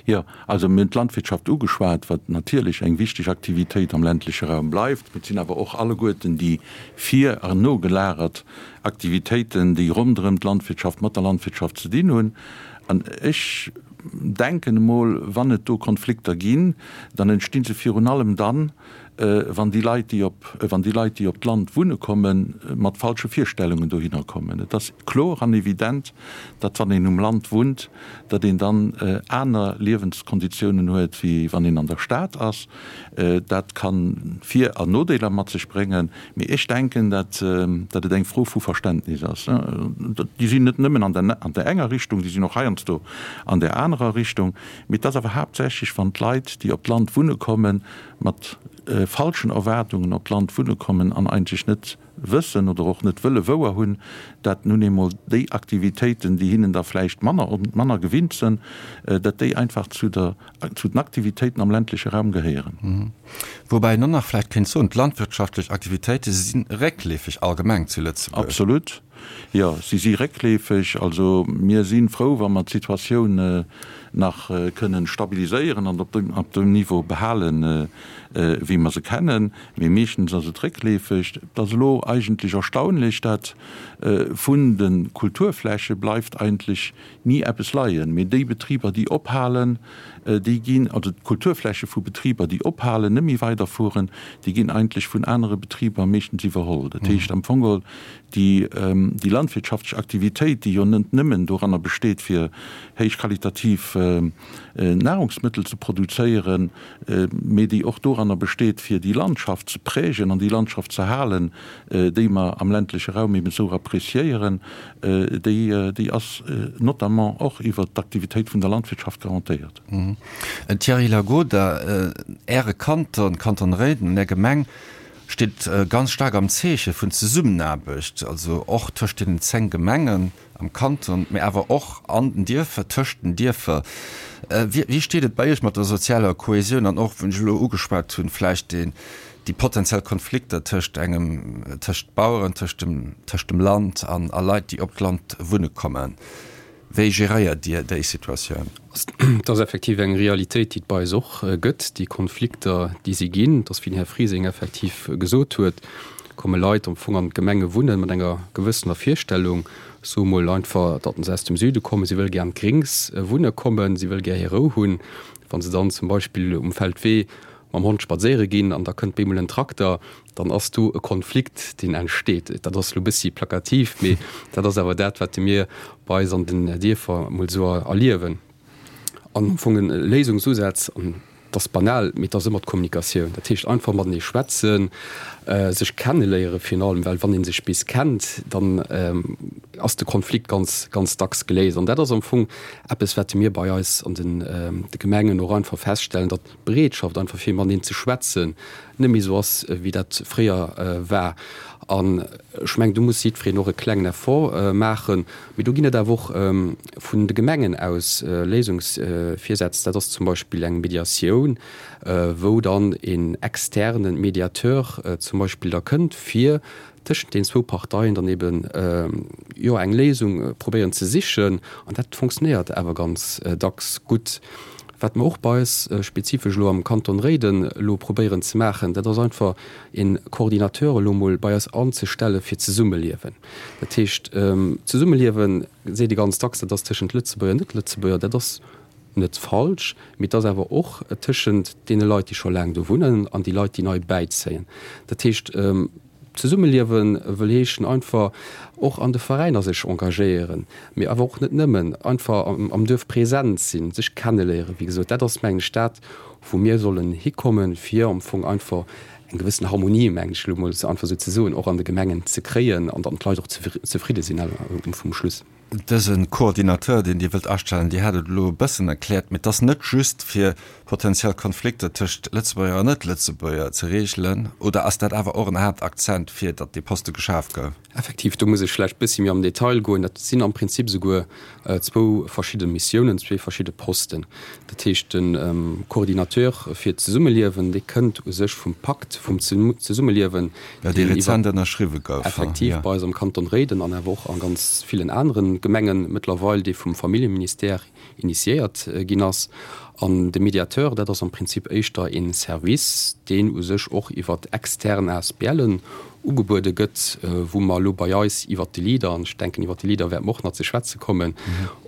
Jo, also mir hunn d'Landwirtschaft ugeschwat, wat natierlech eng wichteg Aktivitéit am ländleche Raum bleift. Mee et sinn awer och alleguerten déi vir an nogelagert Aktivitéiten, déi ronderëm d'Landwirtschaft, mat der Landwirtschaft ze dinn hunn. An ech denken emol, wann et do Konflikter ginn, dann entsti se virun allem dann, wann déi Leit, déi op, wann déi Leit, déi op d'Land wunne kommen, mat falsche Virstellungen dohinner kommen. Et ass kloer an evident, datt wann een um Land wunnt, datt een dann aner Liewenskonditiounen huet, wéi wann een an der Stad ass. Dat ka Vir an Nodeeler mat sech bréngen, mee ech denken, datt datt et eng Fro vu Verständnis ass. Déi sinn net nëmmen an der an der enger Richtung, déi sinn och heiansdo an där anerer Richtung. Mee et ass awer haaptsächlech, wann d'Leit, déi op d'Land wunne kommen, mat falschen Erwaardungen op d'Land wunne kommen an eigentlech net wëssen oder och net wëlle wouer hunn, dat nun eemol déi Aktivitéiten, déi hinnen da vläicht manner manner gewinnt sënn, dat déi einfach zu der zu den Aktivitéiten am ländleche Raum gehéieren. Woubäi een och nach vläicht kéint soen, d'landwirtschaftlech Aktivitéite si réckleefeg allgemeng zu Lëtzebuerg. Absolut. Jo, si si réckleefeg. Also mir si frou, wa mer d'Situatioun nach kënnen stabiliséieren an op dem Niveau behalen, wéi mer se kennen. Mee meeschtens ass et réckleefeg. Et ass elo eigentlech erstaunlech, dat vun de Kulturfläche bleift eigentlech ni eppes leien. Mee déi Betriber, déi ophalen, déi ginn, also d'Kulturfläche vu Betriber, déi ophalen, net méi weiderfueren, déi ginn eigentlech vun anere Betriber meeschtens iwwerholl. Dat heescht am Fong geholl, déi, déi landwirtschaftlech Aktivitéit, déi jo net nëmmen doranner besteet, fir héichqualitativ Nahrungsmëttel ze produzéieren, mee déi och doranner besteet, fir déi Landschaft ze prägen an déi Landschaft ze halen, déi mer am ländleche Raum eben esou appréciéieren, déi, déi ass notamment och iwwert d'Aktivitéit vun der Landwirtschaft garantéiert. Thierry Lagoda, Äre Kanton, Kanton Réiden, an Är Gemeng steet ganz staark am Zeeche vun Zesummenaarbecht, also och tëscht deenen 10 Gemengen am Kanton, mee awer och an den Dierfer, tëscht den Dierfer. Wéi steet et bei Iech mat der sozialer Kohäsioun an och, wou ech elo ugeschwat hunn, vläicht deen, déi potenziell Konflikter tëscht engem, tëscht Baueren, tëscht dem, tëscht dem Land an a Leit, déi op d'Land wunne kommen? Wéi geréiert Dir déi Situatioun? Et ass effektiv eng Realitéit, déi et bei eis och gëtt, déi Konflikter, déi si ginn. Et ass, wéi den Här Frising effektiv gesot huet, komme Leit am Fong an d'Gemenge wunnen mat enger gewëssener Virstellung, soe mol einfach, datt se aus dem Süde kommen, si wëlle gär an d'Gréngs wunne kommen, si wëlle gär hir Rou hunn. Wa se dann zum Beispill um Feldwee mam Hond spadséiere ginn an da kënnt bemol en Trakter, dann ass do e Konflikt, deen entsteet. Dat ass elo e bëssi plakativ, mee dat ass awer dat, wat mir bei eis an den Dierfer emol esou erliewen. An am Fong e Léisungsusaz, an dat ass banal, mee et ass ëmmer d'Kommunikatioun. Dat heescht einfach matenee schwätzen, sech kenneléiere virun allem, well wann ee sech bis kennt, dann ass de Konflikt ganz, ganz dacks geléist. An dat ass am Fong eppes, wat mir bei eis an de Gemengen och einfach feststellen, datt d'Bereetschaft einfach fir mateneen ze schwätzen net méi esou ass, wéi dat fréier war. An ech mengen, do muss jiddwereen och e klengen Effort maachen. Mee do ginn et awer och vun de Gemengen aus Léisungsvirsätz. Dat ass zum Beispill eng Mediatioun, wou dann een externe Mediateur zum Beispill da kënnt, fir tëschent den zwou Parteien dann eben, jo, eng Léisung probéieren ze sichen. An dat fonctionnéiert awer ganz dacks gutt. Wat mer och bei eis spezifesch elo am Kanton Réiden elo probéieren ze maachen, dat ass einfach een Coordinateur elo emol bei eis anzestelle fir d'Zesummeliewen. Dat heescht, Zesummeliewen, seet ee ganz dacks, dat ass tëschent Lëtzebuerger an Net-Lëtzebuerger. Dat ass net falsch, mee et ass awer och tëschent deene Leit, déi scho laang do wunnen an déi Leit, déi nei bäizéien. Dat heescht, Zesummeliewe wëll heeschen einfach och an de Veräiner sech engagéieren, mee awer och net nëmmen, einfach am Duerf present sinn, sech kenneléieren. Wéi gesot, dat ass, mengen ech, dat, wou mir sollen hikommen, fir am Fong einfach eng gewëssen Harmonie, mengen ech elo emol einfach esou ze soen, och an de Gemengen ze kréien an dann d'Leit och zefridde sinn um Schluss. Dëse Coordinateur, deen Dir wëllt astellen, Dir hat et elo e bëssen erkläert, mee et ass net just fir potenziell Konflikter tëscht Lëtzebuerger an Net-Lëtzebuerger ze reegelen, oder ass dat awer och en Haaptakzent, fir datt dee Poste geschaf gouf? Effektiv, do muss ech vläicht e bëssi méi am Detail goen. Dat sinn am Prinzip esouguer zwou verschidde Missiounen, zwee verschidde Posten. Dat heescht, de Coordinateur fir d'Zesummeliewen, dee kënnt u sech vum Pakt vum Zesummeliewen, Jo, dee rezent ënnerschriwwe gouf. Effektiv, bei eis am Kanton Réiden an awer och a ganz villen anere. d'Gemenge mëttlerweil, dee vum Familljeministère initiéiert ginn ass. An de Mediateur, dat ass am Prinzip éischter ee Service, deen u sech och iwwer extern ASBLen ugebuede gëtt, wou mer elo bei eis iwwert de Leader, an ech denken iwwert de Leader wäerte mer och nach ze schwätze kommen,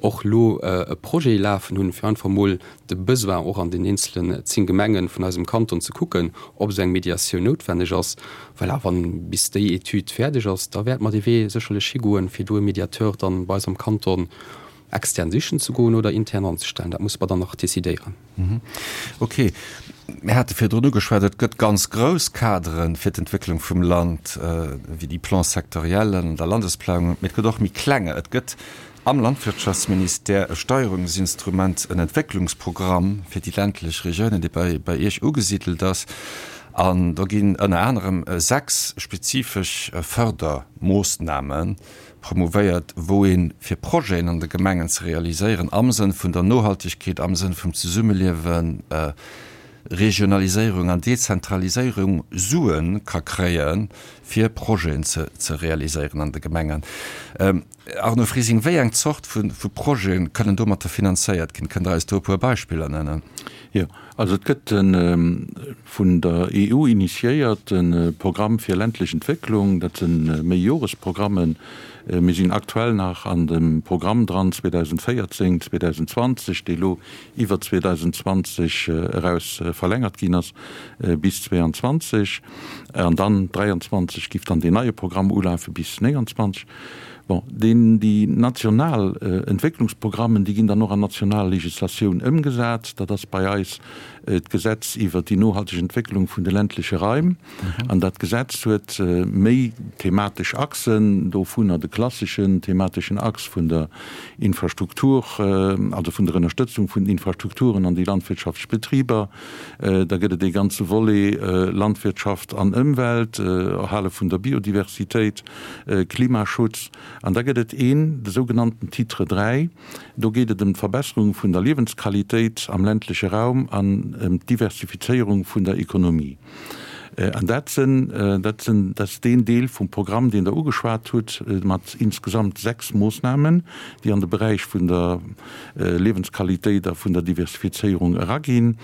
och elo e Projet lafen hunn, fir einfach emol de Besoin och an den eenzelen 10 Gemenge vun eisem Kanton ze kucken, ob esou eng Mediatioun noutwenneg ass. Voilà, wann bis déi Etüd fäerdeg ass, da wäerte mer dee Wee sécherlech higoen, fir do e Mediateur dann bei eis am Kanton extern sichen ze goen oder intern anzestellen. Dat musse mer dann nach decidéieren. Ok. Mir hate virdrun ugeschwat, et gëtt ganz grouss Kadere fir d'Entwécklung vum Land, wéi déi Plans sectoriellen an der Landesplanung, mee et gëtt och méi klenge. Et gëtt am Landwirtschaftsministère e Steierungsinstrument, en Entwécklungsprogramm fir déi ländlech Regiounen, dee bei bei Iech ugesidelt ass. An do ginn ënner anerem 6 spezifesch Fördermoossname promouvéiert, wou ee fir Projeten an de Gemengen ze realiséieren am Sënn vun der Nohaltegkeet, am Sënn vum Zesummeliewen, Regionaliséierung an Dezentraliséierung Sue ka kréie fir Projeten ze realiséieren an de Gemengen. Arno Frising, wéi eng Zort vu Projete kënnen domatter finanzéiert ginn? Kënnt Der eis do e puer Beispiller nennen? Jo, also et gëtt e vun der EU initiéierte Programm fir ländlech Entwécklung. Dat si Méijoresprogrammen. Mir sinn aktuell nach an dem Programm dran 2014, 2020, dee lo iwwer 2020 eraus verlängert ginn ass bis 2022. An dann 2023 giff dann deen neie Programm ulafe bis 2029. Bon, deen, déi national Entwécklungsprogrammen, déi ginn dann och an national Legislatioun ëmgesat. Dat ass bei eis d'Gesetz iwwert déi nohalteg Entwécklung vun de ländleche Raim. An dat Gesetz huet méi thematesch Achsen, dovunner de klasseschen themateschen Achs vun der Infrastruktur, also vun der Ënnerstëtzung vun den Infrastrukturen an déi landwirtschaftlech Betriber. Da gëtt et ee ganze Volet Landwirtschaft an Ëmwelt, Erhale vun der Biodiversitéit. Klimaschutz. An da gëtt et een, de sougenannten Titre 3, do geet et ëm d'Verbesserung vun der Liewensqualitéit am ländleche Raum an ëm d'Diversifizéierung vun der Ekonomie. An dat sinn, dat sinn, dat ass deen Deel vum Programm, deen Der ugeschwat hutt, mat insgesamt 6 Moossnamen, déi an de Beräich vun der Liewensqualitéit a vun der Diversifizéierung eraginn.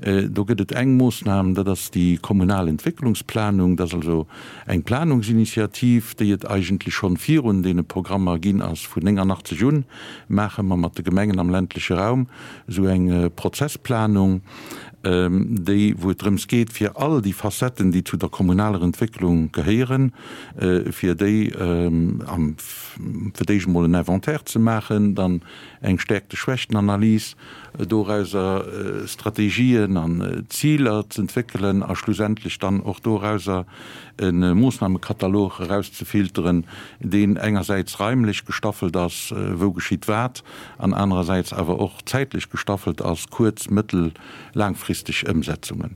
Do gëtt et eng Moossnam, dat ass déi kommunal Entwécklungsplanung, dat ass also Eng Planungsinitiativ, déi et eigentlech schonn virun deene Programmer ginn ass, vun 89 un maache mer mat de Gemengen am ländleche Raum esou eng Prozessplanung, déi, wou et drëms geet, fir all déi Facetten, déi zu der kommunaler Entwécklung gehéieren, fir déi am, fir d'éischt emol en Inventaire ze maachen, dann eng Stärkte-Schwächten-Analys, dorauser Strategien an Ziler z'entwéckelen a schlussendlech dann och dorauser e Moossnamekatalog erauszefilteren, deen engersäits raimlech gestaffelt ass, wou geschitt wat, an anerersäits awer och zäitlech gestaffelt ass, kuerz-, mëttel-, laangfristeg Ëmsetzungen.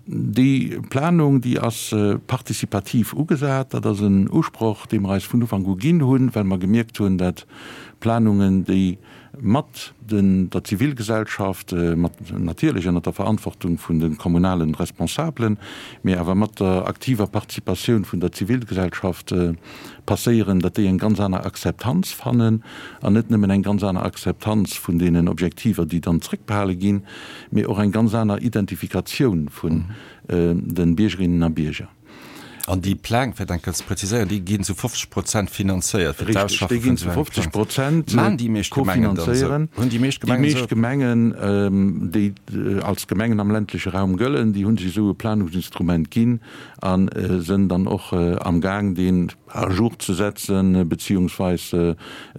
Déi Planung, déi ass participativ ugesat. Dat ass en Usproch, dee mer eis vun Ufank u ginn hunn, well mer gemierkt hunn, dat Planungen, déi mat der Zivilgesellschaft, mat natierlech ënnert der Verantwortung vun de kommunalen Responsabelen, mee awer mat der aktiver Participatioun vun der Zivilgesellschaft passéieren, datt déi eng ganz aner Akzeptanz fannen an net nëmmen eng ganz aner Akzeptanz vun deenen Objektiver, déi dann zréckbehale ginn, mee och eng ganz aner Identifikatioun vun de Biergerinnen a Bierger. An déi Pläng, fir dat eng Kéier ze präziséieren, déi ginn zu 50 Prozent finanzéiert fir d'Ausschaffe vun esou engem Plang. Maachen déi meescht Gemengen dann esou? Hunn déi meescht Gemengen esou? Déi meescht Gemengen, déi als Gemengen am ländleche Raum gëllen, déi hu sech esou e Planungsinstrument ginn a sënn dann och amgaang, deen à jour ze setzen beziehungsweis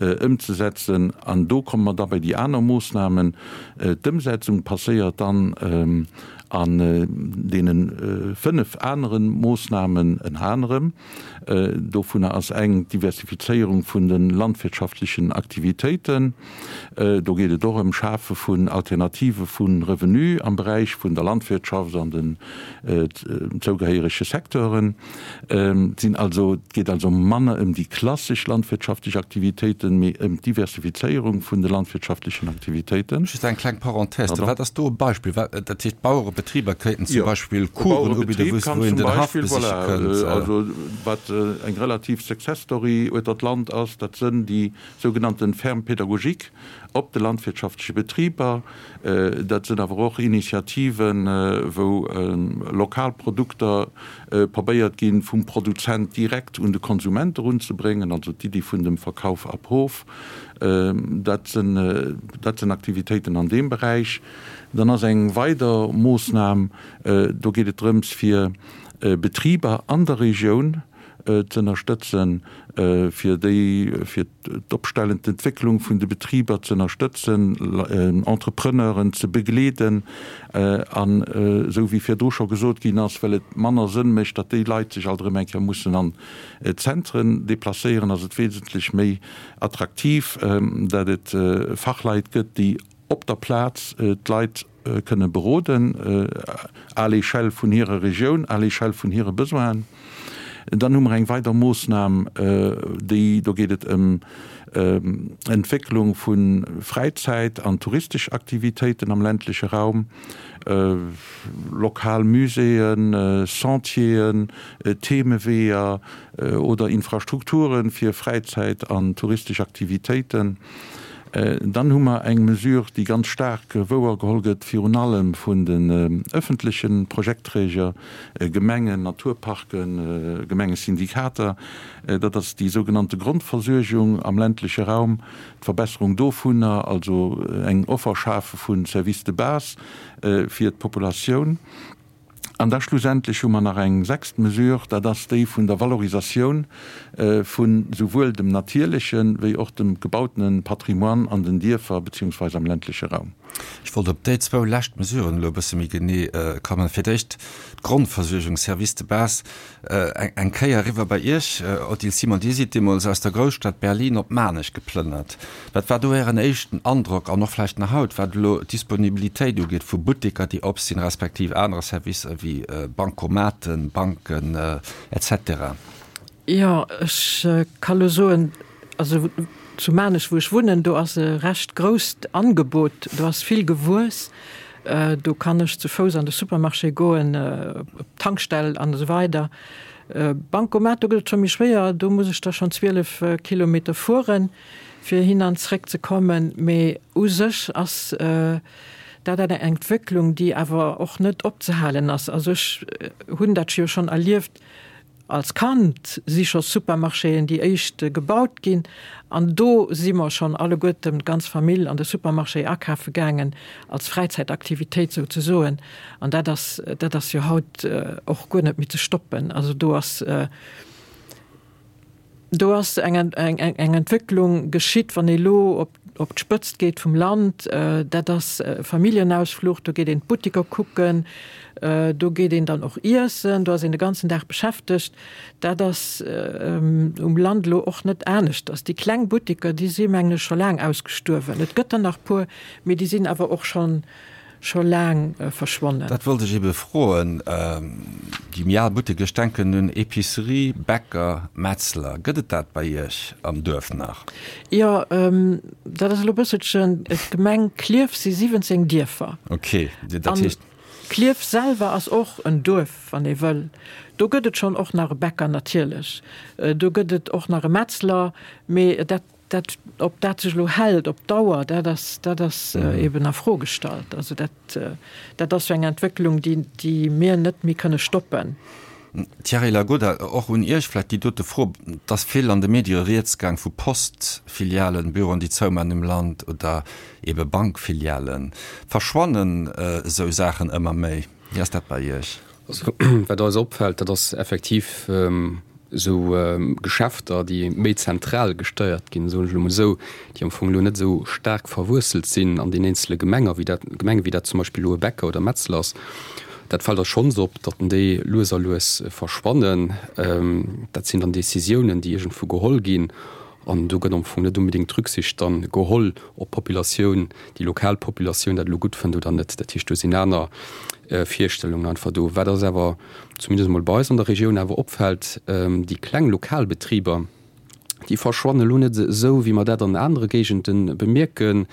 ëmzesetzen. An do komme mer da bei déi aner Moossnamen. D'Ëmsetzung passéiert dann an deene 5 anere Moossnamen ënner anerem, dovunner ass eng d'Diversifizéierung vun de landwirtschaftlechen Aktivitéiten. Do geet et och ëm Schafe vun Alternative vu Revenu am Beräich vun der Landwirtschaft an den zougehéierege Secteuren. Et sinn also, et geet also manner ëm déi klassesch landwirtschaftlech Aktivitéiten, mee ëm d'Diversifizéierung vun de landwirtschaftlechen Aktivitéiten. Just eng kleng Parenthèse, wat ass do e Beispill? Wat, dat heescht, d'Bauere. Betriber kéinten zum Beispill Coursen ubidden, wou een den Haff besiche kënnt. Also wat eng relativ Success Story ueter d'Land ass, dat sënn déi sougenannten Fermes pédagogiques op de landwirtschaftleche Betriber. Dat sënn awer och Initiativen, wou lokal Produkter probéiert ginn, vum Produzent direkt un de Konsument erunzebréngen, also d'Iddi vun dem Verkauf ab Hof. Dat sinn, dat sinn Aktivitéiten an deem Beräich. Dann ass eng weider Moossnam, do geet et drëms, fir Betriber an der Regioun ze ënnerstëtzen, fir déi, fir d'Opstellen, d'Entwécklung vun de Betriber ze ënnerstëtzen, Entrepreneuren ze begleeden an, esou wéi virdru scho gesot ginn ass, well et manner Sënn mécht, datt déi Leit sech alt erëm eng Kéier mussen an d'Zentren deplacéieren, ass et wesentlech méi attraktiv, datt et Fachleit gëtt, déi op der Plaz d'Leit kënne beroden, à l'échelle vun hirer Regioun, à l'échelle vun hire Besoinen. Dann hu mer eng weider Moossnam, déi, do geet et ëm Entwécklung vu Fräizäit an touristesch Aktivitéiten am ländleche Raum, lokal Muséeën, Sentieren, Themeweeër oder Infrastrukture fir Fräizäit an touristesch Aktivitéiten. Dann hu mer eng Mesure, déi ganz staark wouergeholl gëtt, virun allem vun den öffentleche Projektträger, Gemengen, Naturparken, Gemengesyndikater. Dat ass déi sougenannte Grondversuergung am ländleche Raum, d'Verbesserung dovunner, also eng Offer schafe vu Services de base fir d'Populatioun. An da schlussendlech hu mer nach eng sechst Mesure, dat ass déi vun der Valorisatioun vu souwuel dem natierleche wéi och dem gebautene Patrimoine an den Dierfer beziehungsweise am ländleche Raum. Ech wollt op déi zwou lescht Mesuren elo e bësse méi genee kommen. Fir d'éischt d'Grondversuergung, Services de base. Eng Kéier eriwwer bei Iech, Odile Simon, Dir sidd deemools aus der Grousstad Berlin op Maarnech geplënnert. Wat war do Ären éischten Androck an och vläicht nach haut, wat elo d'Disponibilitéit ugeet vu Butteker, déi op sinn, respektiv anere Servicer wéi Bancomaten, Banken, etc. Jo, ech ka lo soen, also zu Maarnech, wou ech wunnen, do ass e recht grousst Angebot, do ass vill gewuess. Do kann ech zu Fouss an de Supermarché goen, op d'Tankstell an esou weider. Bancomat, do gëtt et scho méi schwéier, do muss ech da schonn 12 Kilometer fueren, fir hin an zréck ze kommen. Mee u sech ass dat eng Entwécklung, déi awer och net opzehalen ass. Also ech hunn dat jo schonn erlieft, Als Kand si scho Supermarchéen déi éischt gebaut ginn an do si mer schonn alleguerten, d'ganz Famill, an de Supermarché akafe gaangen, als Fräizäitaktivitéit souzesoen. An dat ass, dat ass jo haut och guer net méi ze stoppen. Also do ass, do ass eng, eng, eng Entwécklung geschitt, wann ee lo op op d'Spëtzt geet vum Land, dat ass Familljenausfluch, do geet een d'Buttiker kucken, do geet een dann och iessen, do ass een de ganzen Dag beschäftegt. Dat ass um Land elo och net aneschters. Déi kleng Buttiker, déi si mengen ech scho laang ausgestuerwen. Et gëtt der nach puer, mee déi sinn awer och schonn scho laang verschwonnen. Dat wollt ech ebe froen. Déi méi al Butteker, ech denken un Epicerie, Bäcker, Metzler, gëtt et dat bei Iech am Duerf nach? Jo, dat ass elo e bësselchen, d'Gemeng Klierf si 17 Dierfer. Ok, dat heescht. An Klierf selwer ass och en Duerf, wann ee wëll. Do gëtt et schonn och nach e Bäcker natierlech, do gëtt et och nach e Metzler, mee dat Dat, ob dat sech elo hält op Dauer, dat ass, dat ass eben a Fro gestallt. Also dat, dat ass jo eng Entwécklung, déi, déi mir net méi kënne stoppen. Thierry Lagoda, och un Iech vläicht déi dote Fro. Et ass vill an de Medie rieds gaang vu Postfilialen, Büroen, déi zouman um Land oder ebe Bankfilialen. Verschwannen esou Saachen ëmmer méi? Wéi ass dat bei Iech? Also wat eis opfält, dat ass effektiv esou Geschäfter, déi méi zentral gesteiert ginn, soen ech elo mol esou, déi am Fong elo net esou staark verwuesselt sinn an den eenzele Gemenger, wéi dat, Gemengen, wéi dat zum Beispill elo e Bäcker oder Metzler ass. Dat fält eis schonns op, datt déi lues a lues verschwannen. Dat sinn dann Décisiounen, déi iergendwou geholl ginn An do gëtt am Fong net unbedéngt Rücksicht dann geholl, ob d'Populatioun, déi lokal Populatioun dat elo gutt fënnt oder net. Dat heescht, do sinn aner Virstellungen einfach do. Wat eis awer, zumindest emol bei eis an der Regioun, awer opfält, déi kleng lokal Betriber, Déi verschwannen elo net esou, wéi mer dat an anere Géigende bemierken,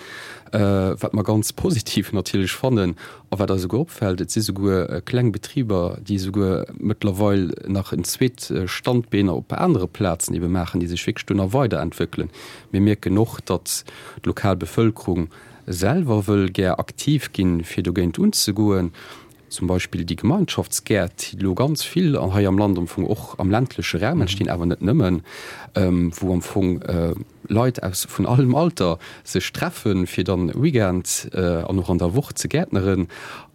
wat mer ganz positiv natierlech fannen a wat eis esouguer opfält, Et si souguer kleng Betriber, déi esouguer mëttlerweil nach en zweet Standbeen op anere Plazen ebe maachen, déi sech wierklech do nach weiderentwéckelen. Mir mierken och, datt d'lokal Bevëlkerung selwer wëll gär aktiv ginn, fir dogéint unzegoen. Zum Beispill déi Gemeinschaftsgäert, déi elo ganz vill hei am Land am Fong och am ländleche Raum entstinn, awer net nëmmen, wou am Fong Leit aus vun allem Alter sech treffen, fir dann Weekend an och an der Woch ze gäertneren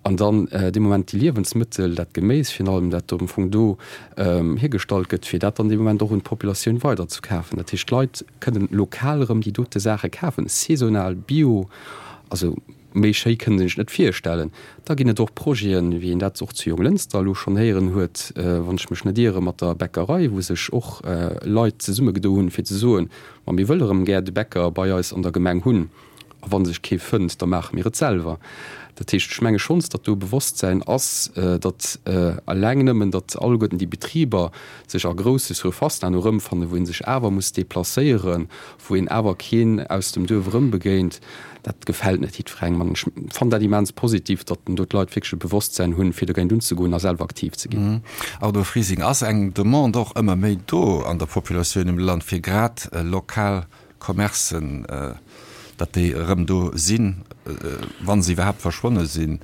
an dann dee Moment déi Liewensmëttel, dat Geméis virun allem, dat am Fong do hiergestallt gëtt, fir dat dann dee Moment och un d'Populatioun weiderzekafen. Dat heescht, d'Leit kënnen lokal erëm déi dote Saache kafen, saisonal, bio, also. Méi schéi kënnt een sech net virstellen. Da ginn et och Projeten, wéi een dat och zu Jonglënster elo schonn héieren huet, wann ech mech net iere mat der Bäckerei, wou sech och Leit zesummegedo hunn, fir ze soen, Ma mir wëlle rëm gär de Bäcker bei eis an der Gemeng hunn, a wa sech kee fënnt, da maache mir et selwer. Dat heescht, ech menge schonns, datt do e Bewosstsäin ass, datt eleng nëmmen, datt alleguerten déi Betriber sech a grousse Surfacen herno erëmfannen, wou ee sech awer muss deplacéieren, wou een awer keen aus dem Duerf erëmbegéint, dat gefält net jiddwerengem. An ech fannen dat immens positiv, datt do d'Leit wierklech e Bewosstsäin hunn, fir dogéint unzegoen a selwer aktiv ze ginn. Arno Frising, Ass eng Demande och ëmmer méi do an der Populatioun um Land, fir grad lokal Commercen, datt déi erëm do sinn, wa se iwwerhaapt verschwonne sinn?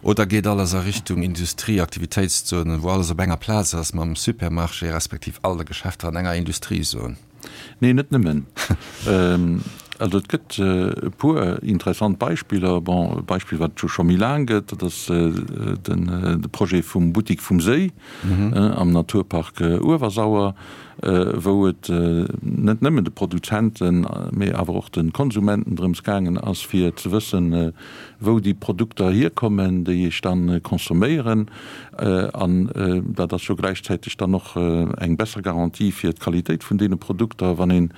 Oder geet alles a Richtung Industrie, Aktivitéitszonen, wou alles op enger Plaz ass mam Supermarché respektiv all de Geschäfter an enger Industriezon? Nee, net nëmmen. Also et gëtt e puer interessant Beispiller. Bon, e Beispill, wat et jo scho méi laang gëtt, dat ass de Projet vum Buttik vum Séi am Naturpark Uewersauer, wou et net nëmmen de Produzenten, mee awer och de Konsumenten drëms gaangen ass, fir ze wëssen, wou déi Produkter hierkommen, déi ech dann consomméieren. An dat ass jo gläichzäiteg dann och eng besser Garantie fir d'Qualitéit vun deene Produkter, wann een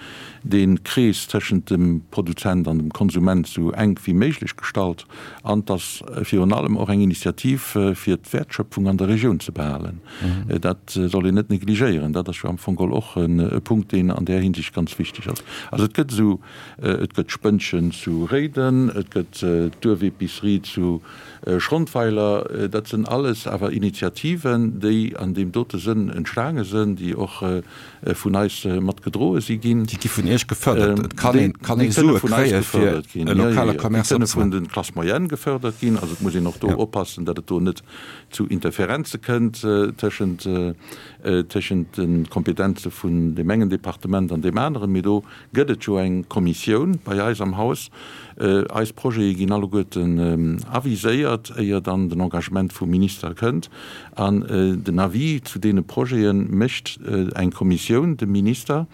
dee Krees tëschent dem Produzent an dem Konsument esou enk wéi méiglech gestalt. An et ass virun allem och eng Initiativ, fir d'Wäertschöpfung an der Regioun ze behalen. Dat soll een net negligéieren. Dat ass jo am Fong geholl och e Punkt, deen an där Hinsicht ganz wichteg ass. Also et gëtt esou, et gëtt d'Spënnchen zu Réiden, et gëtt d'Duerfepicerie zu Schrondweiler. Dat sënn alles awer Initiativen, déi an deem dote Sënn entstaange sënn, déi och vun eis mat gedroe si ginn. Déi gi vun Iech gefërdert. Et kann een, kann ee Sue kréie fir e lokale Commerce opzemaachen. Déi kënne vun de Classes moyennes gefërdert ginn. Also et muss een och do oppassen, datt et do net zu Interferenze kënnt tëschent, tëschent de Kompetenze vun deem engen Departement an deem aneren. Mee do gëtt et jo eng Kommissioun bei eis am Haus. Eis Projete ginn alleguerten aviséiert, éier dann den Engagement vum Minister kënnt. An den Avis zu deene Projete mécht eng Kommissioun dem Minister.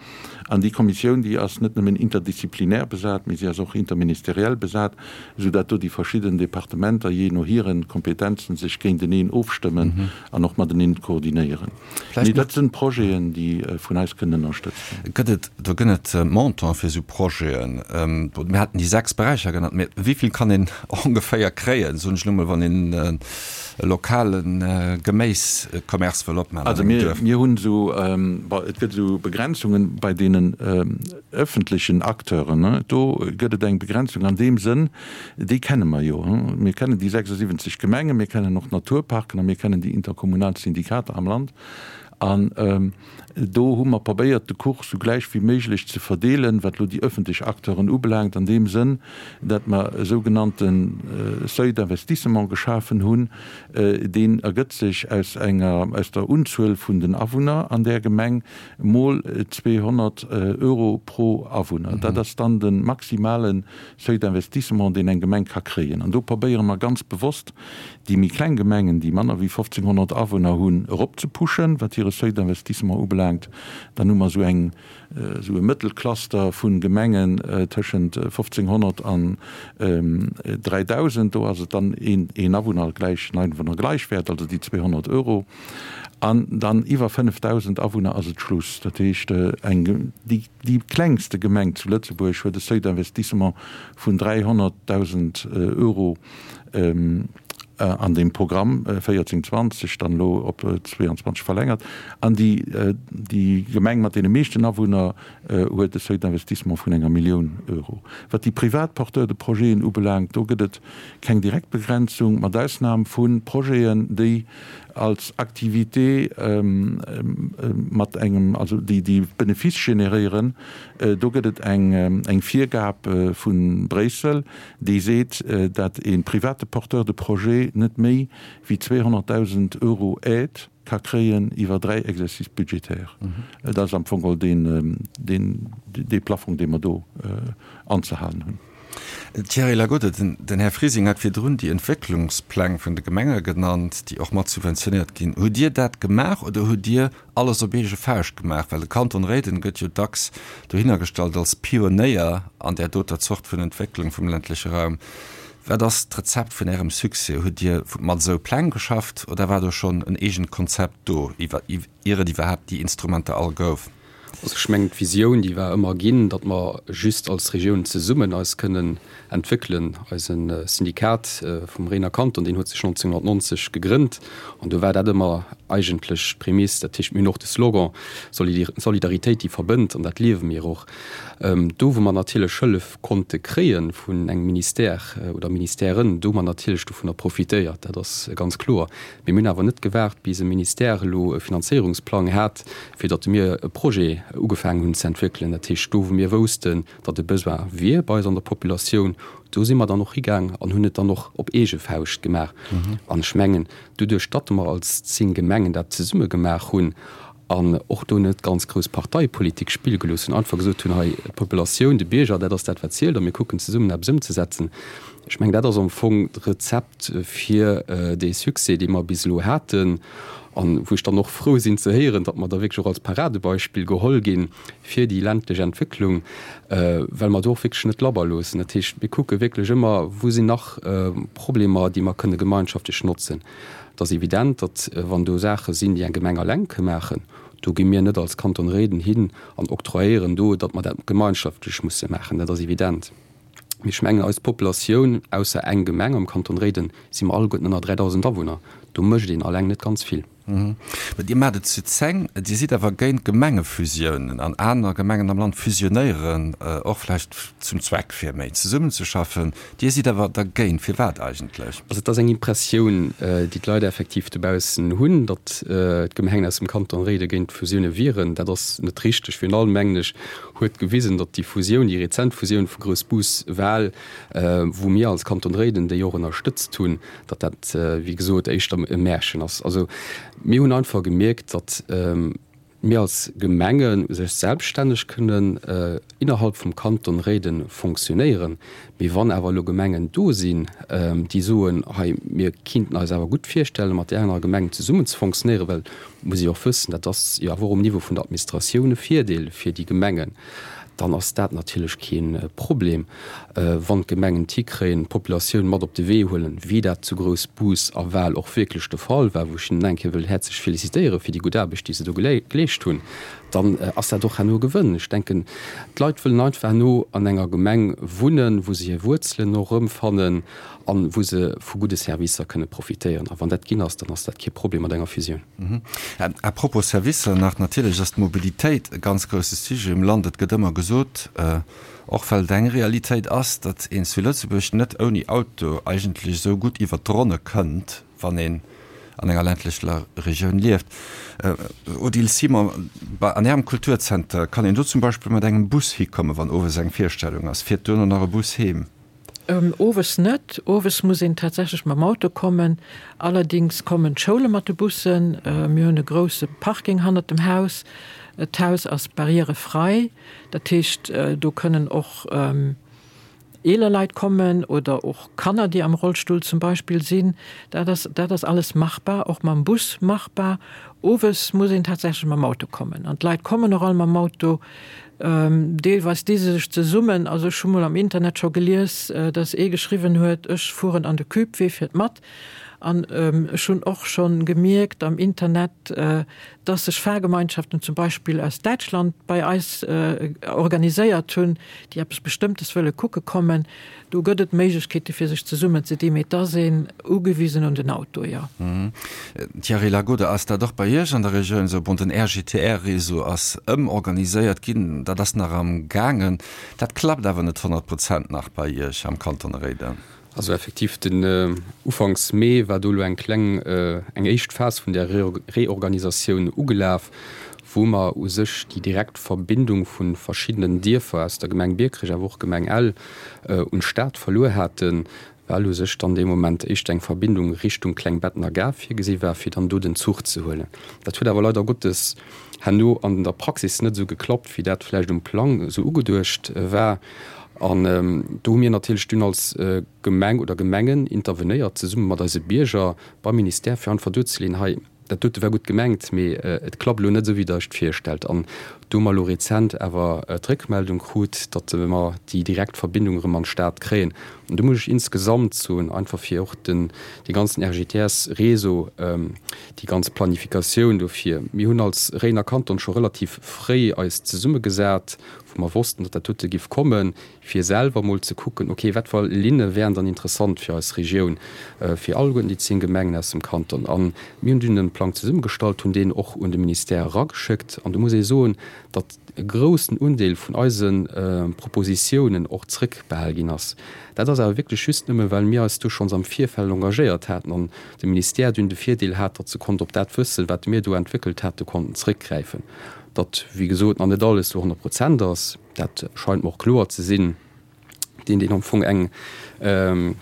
An déi Kommissioun, déi ass net nëmmen interdisziplinär besat, mee si ass och interministeriell besat, soudatt do déi verschidden Departementer jee no hire Kompetenzen sech géinteneen ofstëmmen an och mateneen koordinéieren. Mee dat sinn Projeten, déi vun eis kënnen ënnerstëtzt ginn. Gëtt et, do gënn et Montant fir esou Projeten? Mir haten déi 6 Beräicher genannt, mee wéi vill kann een ongeféier kréien, soen ech elo mol, wann een e lokale Geméiscommerce wëll opmaachen an engem Duerf? Also mir hunn esou, bon, et gëtt esou Begrenzungen bei deenen ëffentlechen Acteuren. Do gëtt et eng Begrenzung an deem Sënn, Déi kenne mer jo. Mir kennen déi 76 Gemengen, mir kennen och d'Naturparken a mir kennen déi interkommunal Syndikater am Land. An do hu mer probéiert, de Kuch sou gläich wéi méiglech ze verdeelen, wat elo déi öffentlech Acteuren ubelaangt, an deem Sënn, datt mer e sougenannte Seuil d'investissement geschafen hunn. Deen ergëtt sech aus enger, aus der Unzuel vun den Awunner an där Gemeng mol 200 Euro pro Awunner. Dat ass dann de maximale Seuil d'investissement, deen eng Gemeng ka kréien. An do probéiere mer ganz bewosst, déi méi kleng Gemengen, déi manner wéi 1.500 Awunner hunn, eropzepuschen, wat hire Seuil d'investissement ubelaangt. Dann hu mer esou eng, esou e Mëttelcluster vu Gemengen tëschent 1.500 an 3.000. Do ass et dann een Awunner gläich en Einwohner gleich Wert, also déi 200 Euro. An dann iwwer 5.000 Awunner ass et Schluss. Dat heescht, eng, déi. Déi klengste Gemeng zu Lëtzebuerg huet e Seuil d'investissement vun 300.000 Euro. an deem Programm 14, 20, dann elo op 22 verlängert. An déi, déi Gemeng mat deene meeschten Awunner huet e Seuil d'investissement vun enger Millioun Euro. Wat déi privat Porteurs de projeten ubelaangt, do gëtt et keng direkt Begrenzung, mat Ausnam vu Projeten, déi als Activité mat engem, also déi, déi Benefice generéieren. Do gëtt et eng, eng Virgab vu Bréissel, déi seet, dat e private Porteur de projet net méi wéi 200.000 Euro Aide ka kréien iwwer dräi Exercices budgétaires. Dat ass am Fong geholl deen, deen, dee Plafong, dee mer do anzehalen hunn. Thierry Lagode, Den Här Frising hat virdrun déi Entwécklungspläng vun de Gemenge genannt, déi och mat subventionéiert ginn. Hutt Dir dat gemaach oder hutt Dir alles op eege Fauscht gemaach? Well de Kanton Réiden gëtt jo dacks dohinner gestallt als Pionéier an där doter Zort vun Entwécklung vum ländleche Raum. Wat ass d'Rezept vun Ärem Succès? Hutt Dir mat esou Pläng geschafft oder war do schonn en eegent Konzept do, ier et iwwerhaapt déi Instrumenter all gouf? Also ech mengen, d'Visioun, déi war ëmmer ginn, datt mer just als Regioun zesummen eis kënnen entwéckelen. Eise Syndikat vum Réiner Kanton, deen huet sech 1990 gegrënnt an do war dat ëmmer eigentlech d'Prämiss. Dat heescht, mir hunn och de Slogan Solidaritéit, déi verbënnt an dat liewe mir och. Do, wou mer natierlech Hëllef konnte kréie vun engem Ministère oder Ministèren, do hu mer natierlech dovunner profitéiert, dat ass ganz kloer. Mee mir hunn awer net gewaart, bis e Ministère elo e Finanzéierungsplang hat, fir datt mir e Projet ugefaangen hunn ze entwéckelen. Dat heescht, do wou mir woussten, datt e Besoin wier bei eis an der Populatioun, do si mer dann och higaang an hunn et dann och op eege Fauscht gemaach. An ech mengen, doduerch datt mer als 10 Gemengen dat zesumme gemaach hunn an och do net ganz grouss Parteipolitik spille gelooss hunn, einfach gesot hunn, hei d'Populatioun, de Bierger, dat ass dat wat zielt a mir kucken zesummen eppes ëmzesetzen, ech mengen, dat ass am Fong d'Rezept fir dee Succès, dee mer bis elo haten an wou ech dann och frou sinn ze héieren, datt mer da wierklech och als Paradebeispill geholl gi fir déi ländlech Entwécklung, well mer do och wierklech net labber loossen. Dat heescht, mir kucke wierklech ëmmer, wou sinn nach Problemer, déi mer kënne gemeinschaftlech notzen. Et ass evident, datt wann do Saache sinn, déi eng Gemeng alleng ka maachen, do gi mir net als Kanton Réiden hin an octroyéieren do, datt mer dat gemeinschaftlech musse maachen. Dat ass evident. Mee ech mengen, eis Populatioun, ausser eng Gemeng am Kanton Réiden, si mer alleguerten ënner 3.000 Awunner. Do mécht een alleng net ganz vill. Mä Dir maacht et zu 10. Dir sidd awer géint Gemengefusiounen an aner Gemengen am Land fusionéieren och vläicht zum Zweck fir méi zesummenzeschaffen. Dir sidd awer dergéint. Firwat eigentlech? Also et ass eng Impressioun, déi d'Leit effektiv dobaussen hunn, datt d'Gemengen aus dem Kanton Réiden géint Fusioune wieren. Dat ass net richteg. Virun allem, mengen ech, huet gewisen, datt déi Fusioun, déi rezent Fusioun vu Groussbus-Wal, wou mir als Kanton Réiden déi och ënnerstëtzt hunn, datt dat, wéi gesot, éischter e Märchen ass. Also mir hunn einfach gemierkt, datt mir als Gemenge sech selbststänneg kënnen innerhalb vum Kanton Réiden fonctionnéieren. Mee wann awer elo Gemengen do sinn, déi soen, hei mir kinnten eis awer gutt virstellen, mat där anerer Gemeng zesummen ze fonctionnéieren, well, muss ee och wëssen, dat ass jo awer och um Niveau vun der Administratioun e Virdeel fir déi Gemengen, dann ass dat natierlech kee Problem, wann d'Gemengen et hikréien, d'Populatioun mat op de Wee huelen, wéi dat zu Groussbus a Wal och wierklech de Fall war, wou ech hinnen eng Kéier wëll häerzlech félicitéiere fir déi gutt Aarbecht, déi se do geleescht hunn, dann ass dat och herno e Gewënn. Ech denken, d'Leit wëllen einfach herno an enger Gemeng wunnen, wou se hir Wuerzelen och erëmfannen an wou se vu gudde Servicer kënne profitéieren. A wann dat ginn ass, dann ass dat kee Problem mat enger Fusioun. À propos Servicer nach, natierlech ass d'Mobilitéit e ganz grousse Sujet um Land. Et gëtt ëmmer gesot, och well et eng Realitéit ass, datt een zu Lëtzebuerg net ouni Auto eigentlech esou gutt iwwert d'Ronne kënnt, wann een an enger ländlecher Regioun lieft. Odile Simon, bei an Ärem Kulturzenter, kann een do zum Beispill mat engem Bus hikommen, wann owes eng Virstellung ass? Fiert duerno nach e Bus heem? Owes net. Owes muss een tatsächlech mam Auto kommen. Allerdings kommen d'Schoule mat de Bussen. Mir hunn e grousse Parking hannert dem Haus. D'Haus ass barrièrefrei. Dat heescht, do kënnen och eeler Leit kommen oder och Kanner, déi am Rollstull zum Beispill sinn. Dat ass, dat ass alles machbar, och mam Bus machbar. Owes muss een tatsächlech mam Auto kommen. An d'Leit kommen och all mam Auto. Deelweis di se sech zesummen. Also ech hu mol am Internet scho gelies, datt ee geschriwwen huet, ech fueren an de Cube, wee fiert mat? An ech hunn och scho gemierkt am Internet, datt sech Fahrgemeinschaften zum Beispill aus Däitschland bei eis organiséiert hunn, déi eppes Bestëmmtes wëlle kucke kommen. Do gëtt et Méiglechkeete fir sech zesummen ze dinn, mee et ass een ugewisen un den Auto, jo. Thierry Lagode, Ass dat och bei Iech an der Regioun esou? Bon, den RGTR-Réseau ass ëmorganiséiert ginn, dat ass nach am gaangen. Dat klappt awer net 100 Prozent nach bei Iech am Kanton Réiden. Also effektiv, den Ufanks Mee war do elo eng kleng, eng éischt Phas vun där Reorganisatioun ugelaf, wou mer u sech déi direkt Verbindung vu verschiddenen Dierfer aus der Gemeng Biekerech, awer och Gemeng Ell, un d'Stad verluer haten, well u sech dann dee Moment éischter eng Verbindung Richtung Klengbettener Gare virgesi war, fir dann do den Zuch ze huelen. Dat huet awer leider Gottes herno an der Praxis net esou geklappt, wéi dat vläicht um Plang esou ugeduecht war. An do hu mir natierlech dunn als Gemeng oder Gemengen intervenéiert, zesumme mat eise Bierger beim Ministère, fir einfach duerzeleeën, hei, dat dote war gutt gemengt, mee et klappt elo net esou, wéi Der Iech et virstellt. An do hu mer elo rezent awer d'Réckmeldung krut, datt mer déi direkt Verbindung erëm an d'Stad kréien. An do muss ech insgesamt soen, einfach fir och den, dee ganzen RGTS-Réseau, déi ganz Planifikatioun dofir, mir hunn als Réidener Kanton scho relativ fréi eis zesummegesat, wou mer wossten, datt dat dote giff kommen, fir selwer emol ze kucken, okay, wat fir Linne wären dann interessant fir eis Regioun, fir alleguerten déi 10 Gemengen aus dem Kanton. A mir hunn dunn e Plang zesummegestallt, hunn deen och un de Ministère erageschéckt. An do muss ee soen, datt e groussen Undeel vun eise Propositiounen och zrëckbehal ginn ass. Dat ass awer wierklech just nëmme, well mir eis do schonns am Virfeld engagéiert haten an de Ministère dunn de Virdeel hat, datt se konnt op dat Wëssen, wat mir do entwéckelt haten, konnten zrëckgräifen. Datt, wéi gesot, nach net alles zu 100 Prozent ass, dat scheint mer och kloer ze sinn. Deen, deen am Fong eng, en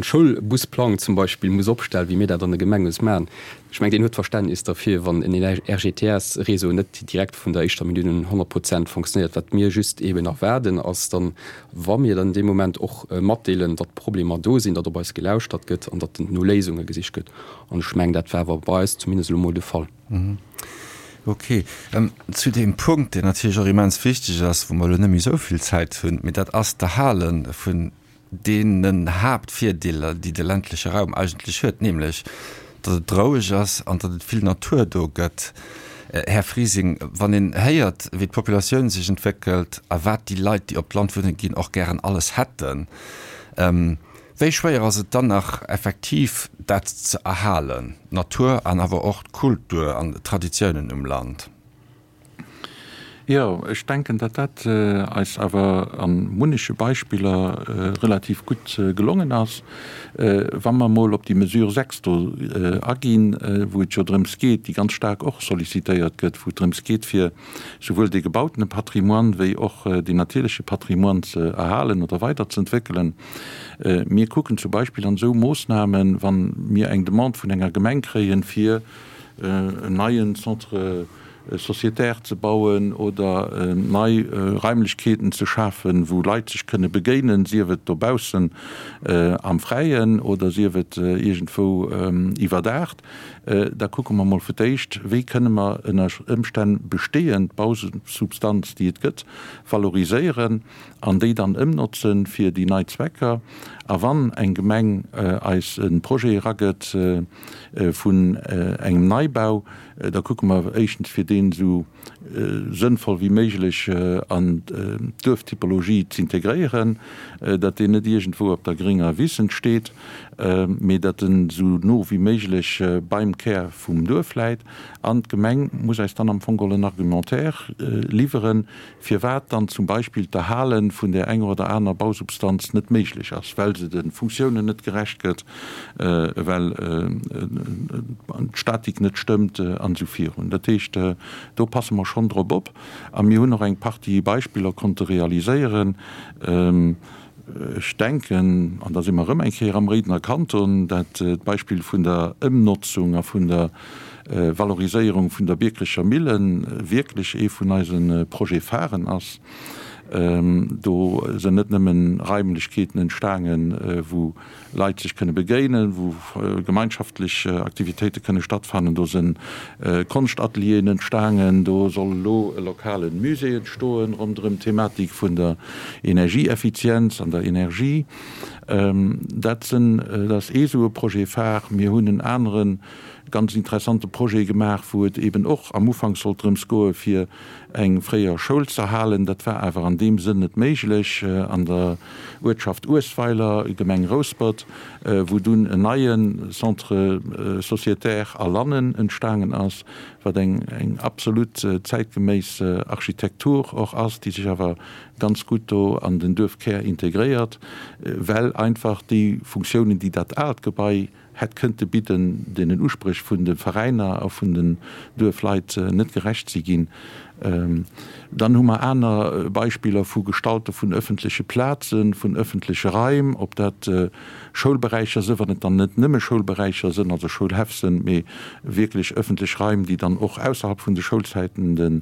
Schoulbusplang zum Beispill muss opstellen, wéi mir dat an de Gemenge maachen, ech mengen, deen huet Verständnis derfir, wann en RGTS-Réseau net direkt vun der éischter Minutt un 100 Prozent fonctionnéiert. Wat mir just eeben erwaarden, ass dann, wa mir dann dee Moment och matdeelen, datt Problemer do sinn, datt op eis gelauschtert gëtt an datt no Léisunge gesicht gëtt. An ech mengen, dat war awer bei eis zumindest elo mol de Fall. Ok. Zu deem Punkt, deen natierlech och immens wichteg ass, wou mer elo net méi esou vill Zäit hunn, mee dat ass d'Erhale vun deenen Haaptvirdeeler, déi de ländleche Raum eigentlech huet, nämlech datt et roueg ass an datt et vill Natur do gëtt. Här Frising, wann een héiert, wéi d'Populatioun sech entwéckelt a wat déi Leit, déi op d'Land wunne ginn, och gären alles hätten, Wéi schwéier ass et dann nach effektiv dat ze erhalen, d'Natur an awer och d'Kultur an d'Traditiounen um Land? Jo, ech denken, datt dat eis awer a munneche Beispiller relativ gutt gelongen ass. Wa mer emol op déi Mesure 6 do aginn, wou et jo drëms geet, déi ganz staark och sollicitéiert gëtt, wou et drëms geet, fir souwuel dee gebautene Patrimoine wéi och deen natierleche Patrimoine ze erhalen oder weiderzeentwéckelen. Mir kucken zum Beispill an esou Moossnamen, wa mir eng Demande vun enger Gemeng kréien, fir en neien Centre sociétaire ze bauen oder nei Raimlechkeeten ze schafen, wou Leit sech kënne begéinen, sief et dobaussen am Fräien oder sief et iergendwou iwwerdaacht, Da kucke mer mol fir d'éischt, wéi kënne mer ënner Ëmstänn bestehend Bausubstanz, déi et gëtt, valoriséieren an déi dann ëmnotze fir déi nei Zwecker. A wann eng Gemeng eis e Projet eragëtt vun engem Neibau, da kucke mer éischtens, fir deen esou sënnvoll wéi méiglech an d'Duerftypologie z'integréieren, datt deen net iergendwou op der grénger Wiss entsteet, mee datt en esou no wéi méiglech beim Kär vum Duerf läit. An d'Gemeng muss eis dann am Fong geholl en Argumentaire liwweren, firwat dann zum Beispill d'Erhale vun där enger oder aner Bausubstanz net méiglech ass, well se de Funktiounen net gerecht gëtt, well d'Statik net stëmmt an esou virun. Dat heescht, do passe mer schonn drop op a mir hunn och eng Partie Beispiller konnte realiséieren. Ech denken, an da si mer erëm eng Kéier am Réidener Kanton, dat d'Beispill vun der Ëmnotzung a vun der Valoriséierung vun der Biekerecher Millen wierklech ee vun eise Projet-pharen ass. Do sënn net nëmmen Raimlechkeeten entstaangen, wou Leit sech kënne begéinen, wou gemeinschaftlech Aktivitéite kënne stattfannen. Do sënn Konschtatelieren entstaangen. Do soll elo e lokale Musée entstoen ronderëm d'Thematik vun der Energieeffizienz an der Energie. Dat sënn, dat ass ee sou e Projet phare. Mir hunn en anere ganz interessante Projet gemaach, wou et eben och am Ufank sollt drëms goe fir eng fréier Schoul z'erhalen. Dat war awer an deem Sënn net méiglech an der Uertschaft Uesweiler, Gemeng Rouspert, wou dunn en neie Centre sociétaire a Lannen entstaangen ass, wat eng eng absolut zäitgeméiss Architektur och ass, déi sech awer ganz gutt do an den Duerfkär integréiert, well einfach déi Funktiounen, déi dat aalt Gebai hätt kënnte bidden, deenen Uspréch vun de Veräiner a vun den Duerfleit net gerecht si ginn. Dann hu mer aner Beispiller vu Gestalte vun öffentleche Plazen, vun öffentleche Raim, ob dat Schoulberäicher sënn, wann et dann net nëmme Schoulberäicher sënn, also Schoulhäff sënn, mee wierklech öffentlech Raim, déi dann och ausserhalb vun de Schoulzäiten de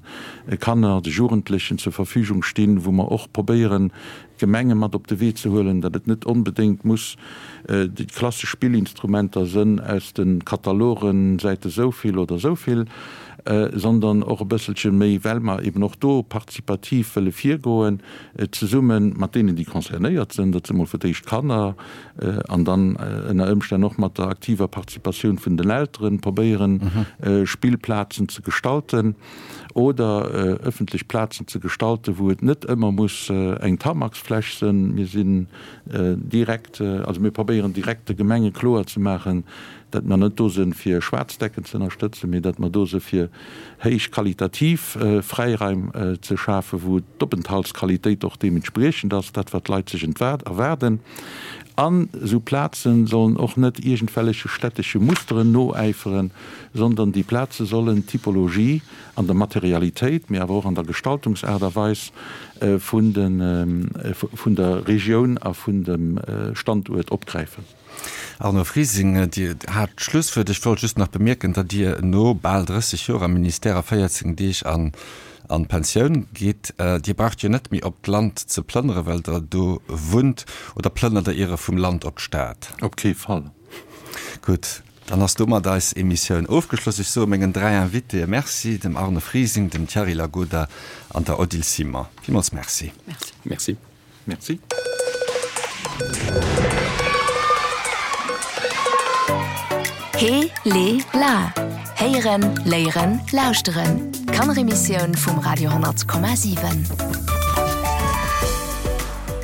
Kanner, de Jugendlechen zur Verfügung stinn, wou mer och probéieren, d'Gemenge mat op de Wee ze huelen, datt et net onbedéngt muss déi klassesch Spillinstrumenter sënn aus de Katalogen, Säite souvill oder souvill, sondern och e bësselche méi, well mer eben och do partizipativ wëlle virgoen, zesumme mat deenen, déi concernéiert sënn, dat si mol fir d'éischt d'Kanner, an dann ënner Ëmstänn och mat der aktiver Participatioun vun den Elteren, probéieren, Spillplazen ze gestalten. Oder ëffentlech Plazen ze gestalten, wou et net ëmmer muss eng Tarmacsfläch sënn. Mir sinn direkt, also mir probéieren direkt de Gemenge kloer ze maachen, datt mer net do sënn fir schwaarz Decken ze ënnerstëtzen, mee datt mer do së fir héich qualitativ Fräiraim ze schafen, wou d'Openthaltsqualitéit och deementspriechend ass, dat wat d'Leit sech erwaarden. An esou Plazen sollen och net iergendwelleche stättesche Musteren noäiferen, sondern déi Plaze sollen d'Typologie an der Materialitéit, mee awer och an der Gestaltungsaart a Weis vun vun der Regioun a vun dem Standuert opgräifen. Arno Frising, Dir hat d'Schlusswuert. Ech wollt just nach bemierken, datt Dir no bal 30 Joer am Ministère a 14 Deeg an an d'Pensioun gitt. Dir braucht jo net méi op d'Land ze plënnere well Der do wunnt. Oder plënnert Der iere vum Land op d'Stad? Op kee Fall. Gutt. Dann ass domat eis Emissioun ofgeschloss. Ech soe mengen 3 Invitéë Merci, dem Arne Frising, dem Thierry Lagoda an der Odile Simon. Villmools Merci. Merci. Merci. He, le, la Héieren, léieren, lauschteren. D'Kanneremissioun vum Radio 10,7.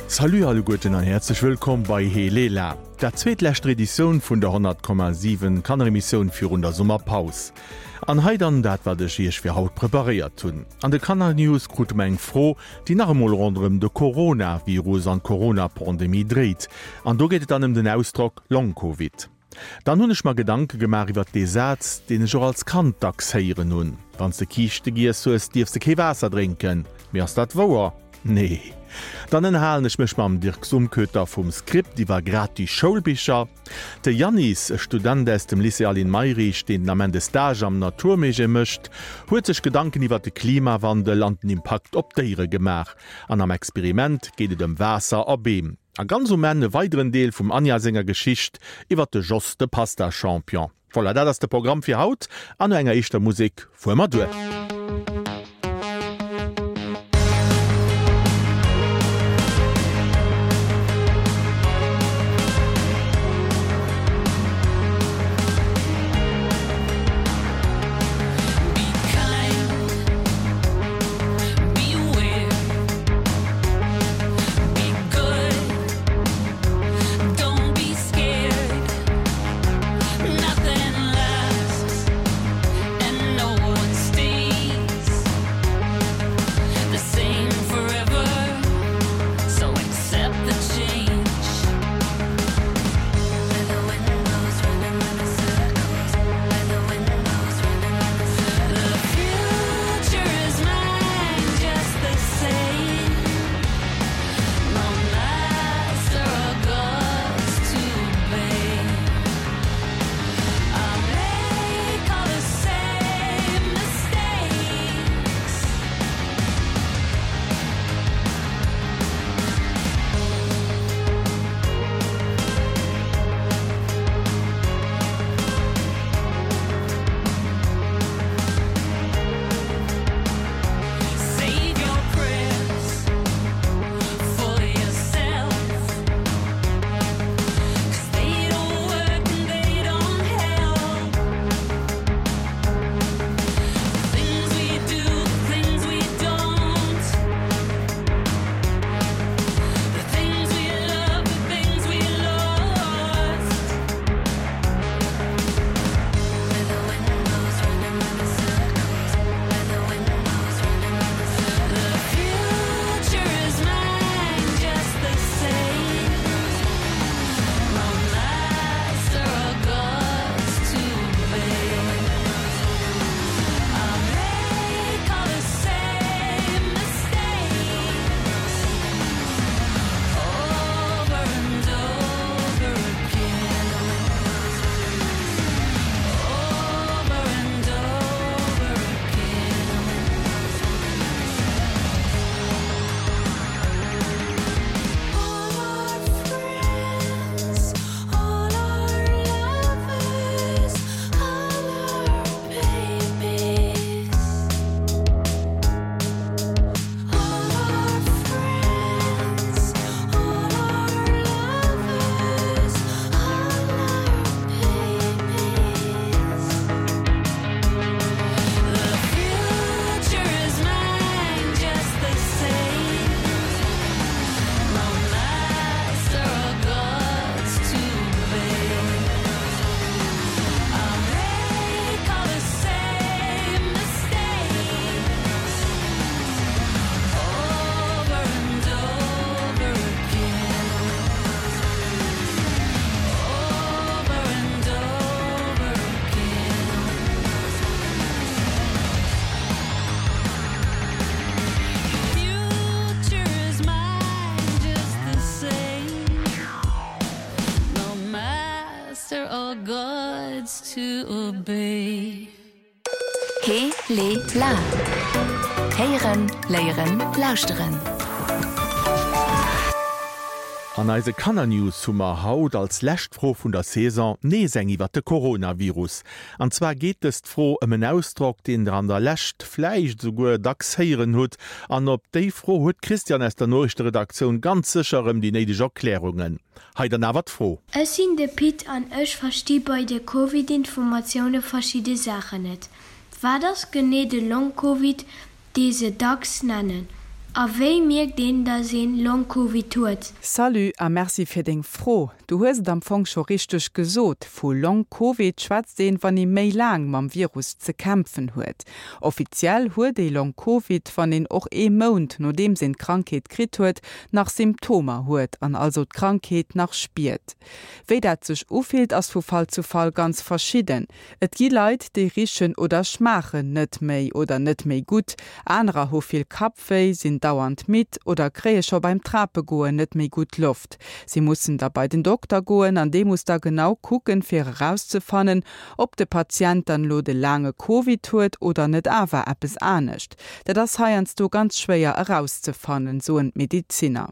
Salut alleguerten an häerzlech wëllkomm bei He, le, la. Dat zweetlescht Editioun vun der 100,7 Kanneremissioun virun der Summerpaus. An hei dann dat wat ech iech fir haut preparéiert hunn. An de Kannernews krute mer eng Fro, déi nach emol ronderëm de Coronavirus an d'Corona-Pandemie dréit. An do geet et dann ëm den Ausdrock Long Covid. Dann hunn ech mer Gedanke gemaach iwwert dee Saz, deen ech och als Kand dacks héieren hunn, Wann s de Kiischte giess hues, dierfs de kee Waasser drénken. Mee ass dat wouer? Nee. Dann ënnerhalen ech mech mam Dirk Sumköter vum Script iwwer gratis Schoulbicher. De Yannis, e Student aus dem Lycée Aline Mayrisch, deen den Ament e Stage am Natur Musée mécht, huet sech Gedanken iwwer de Klimawandel an den Impakt op d'Déiere gemaach. An am Experiment geet et ëm Waasser a Beem. A ganz um Enn e weideren Deel vum Anja senger Geschicht iwwer de Jos, de Pasta-Champion. Voilà, dat ass de Programm fir haut an no enger éischter Musek fuere mer duer. to obey. He, le, la Héieren, léieren, lauschteren. An eise Kannernews hu mer haut als lescht Fro vun der Saison nees eng iwwert de Coronavirus. An zwar geet dëst Fro ëm en Ausdrock, deen der an der Lescht vläicht esouguer dacks héieren hutt. An op déi Fro huet d'Christiane aus der Noriichteredaktioun ganz sécher erëm déi néideg Erklärungen. Hei dann awer d'Fro. Ech sinn de Pit an ech versti bei de Covid-Informatioune verschidde Saachen net. Wat ass genee de Long-Covid, dee se dacks nennen? A wéi mierkt een, datt een Long-Covid huet? Salut a Merci fir deng Fro. Du hues et am Fong scho richteg gesot, vu Long Covid schwätzt een, wann ee méi laang mam Virus ze kämpfen huet. Offiziell huet ee Long Covid, wann een och ee Mount nodeems een d'Krankheet kritt huet, nach Symptomer huet an also d'Krankheet nach spiert. Wéi dat sech ufillt, ass vu Fall zu Fall ganz verschidden. Et gi Leit, déi richen oder schmaachen net méi oder net méi gutt, anerer hu vill Kappwéi, sinn dauernd midd oder kréie scho beim Trapegoen net méi gutt Loft. Si mussen da bei den Dokter goen an dee muss da genau kucken, fir erauszefannen, ob de Patient dann elo de laange Covid huet oder net awer eppes anescht. Dat ass heiansdo ganz schwéier erauszefannen, soen d'Medezinner.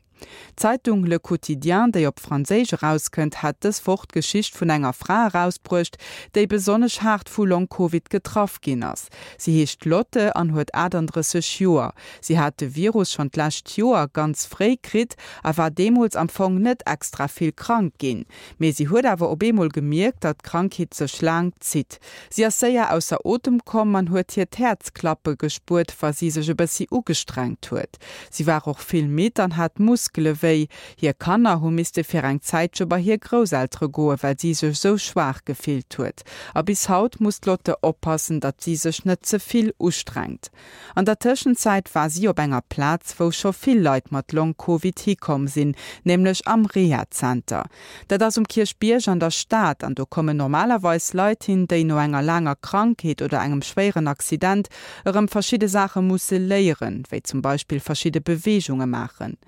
D'Zeitung Le Quotidien, déi op Franséisch erauskënnt, hat dës Woch d'Geschicht vun enger Fra erausbruecht, déi besonnesch haart vu Long-Covid getraff ginn ass. Si heescht Lotte an huet 38 Joer. Si hat de Virus schonn d'lescht Joer ganz fréi kritt a war deemools am Fong net extra vill krank ginn. Mee si huet awer op eemol gemierkt, datt d'Krankheet sech laang zitt. Si ass séier ausser Otem komm an huet hiert Häerz klappe gespuert, wa si sech e bëssi ugestrengt huet. Si war och vill midd an hat Muskele wéi. Hir Kanner hu misste fir eng Zäitche bei hir Grousseltere goen, well si sech sou schwaach gefillt huet. A bis haut muss d'Lotte oppassen, datt si sech net ze vill ustrengt. An der Tëschenzäit war si op enger Plaz, wou scho vill Leit mat Long-Covid hikomm sinn, nämlech am Rehazenter. Dat ass um Kierchbierg an der Stad an do kommen normalerweis Leit hin, déi no enger laanger Krankheet oder engem schwéieren Accident erëm verschidde Saache musse léieren, wéi zum Beispill verschidde Beweegunge maachen.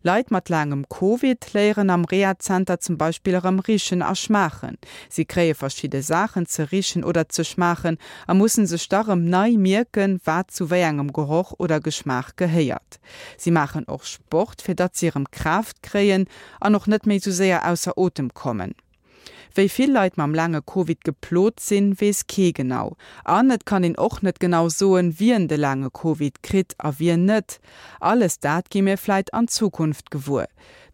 Leit mat laangem Covid léieren am Rehazenter zum Beispill erëm richen a schmaachen. Si kréie verschidde Saachen ze richen oder ze schmaachen a mussen sech da rëm nei mierken, wat zu wéi engem Geroch oder Geschmaach gehéiert. Si maachen och Sport, fir datt si erëm Kraaft kréien an och net méi sou séier ausser Otem kommen. Wéi vill Leit mam laange Covid geplot sinn, weess kee genau. An et kann een och net genau soen, wien de laange Covid kritt a wien net. Alles dat gi mir vläit an Zukunft gewuer.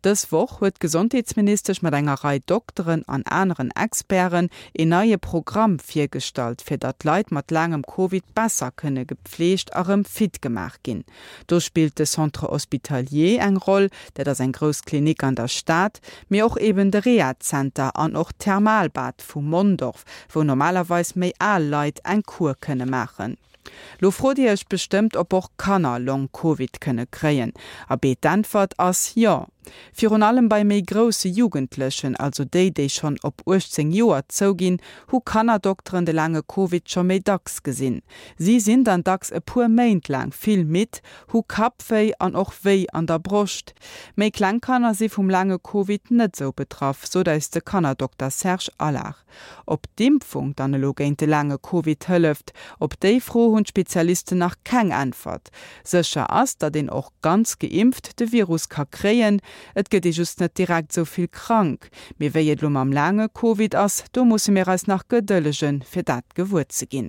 Dës Woch huet d'Gesondheetsministesch mat enger Rei Dokteren an aneren Experten een neie Programm virgestallt, fir datt Leit mat laangem Covid besser kënne gepfleegt a rëm fit gemaach ginn. Do spillt de Centre hospitalier eng Roll, dat ass eng grouss Klinik an der Stad, mee och eben de Rehazenter an och d'Thermalbad vu Mondorf, wou normalerweis méi al Leit eng Kur kënne maachen. Lo frot Dir Iech bestëmmt, ob och Kanner Long Covid kënne kréien. Abee, d'Äntwert ass jo. Virun allem bei méi grousse Jugendlechen, also déi, déi schonn op 18 Joer zouginn, hu Kannerdokteren de laange Covid scho méi dacks gesinn. Si sinn dann dacks e puer Méint laang vill midd, hu Kappwéi an och Wéi an der Broscht. Méi kleng Kanner si vum laange Covid net sou betraff, sot eis de Kannerdokter Serge Allard. Ob d'Impfung dann elo géint de laange Covid hëlleft, op déi Fro hunn d'Spezialisten nach keng Äntwert. Sécher ass, datt een och ganz geimpft de Virus ka kréien, et gëtt ee just net direkt esou vill krank. Mee wéi et elo mam laange Covid ass, do musse mir eis nach gedëllegen, fir dat gewuer ze ginn.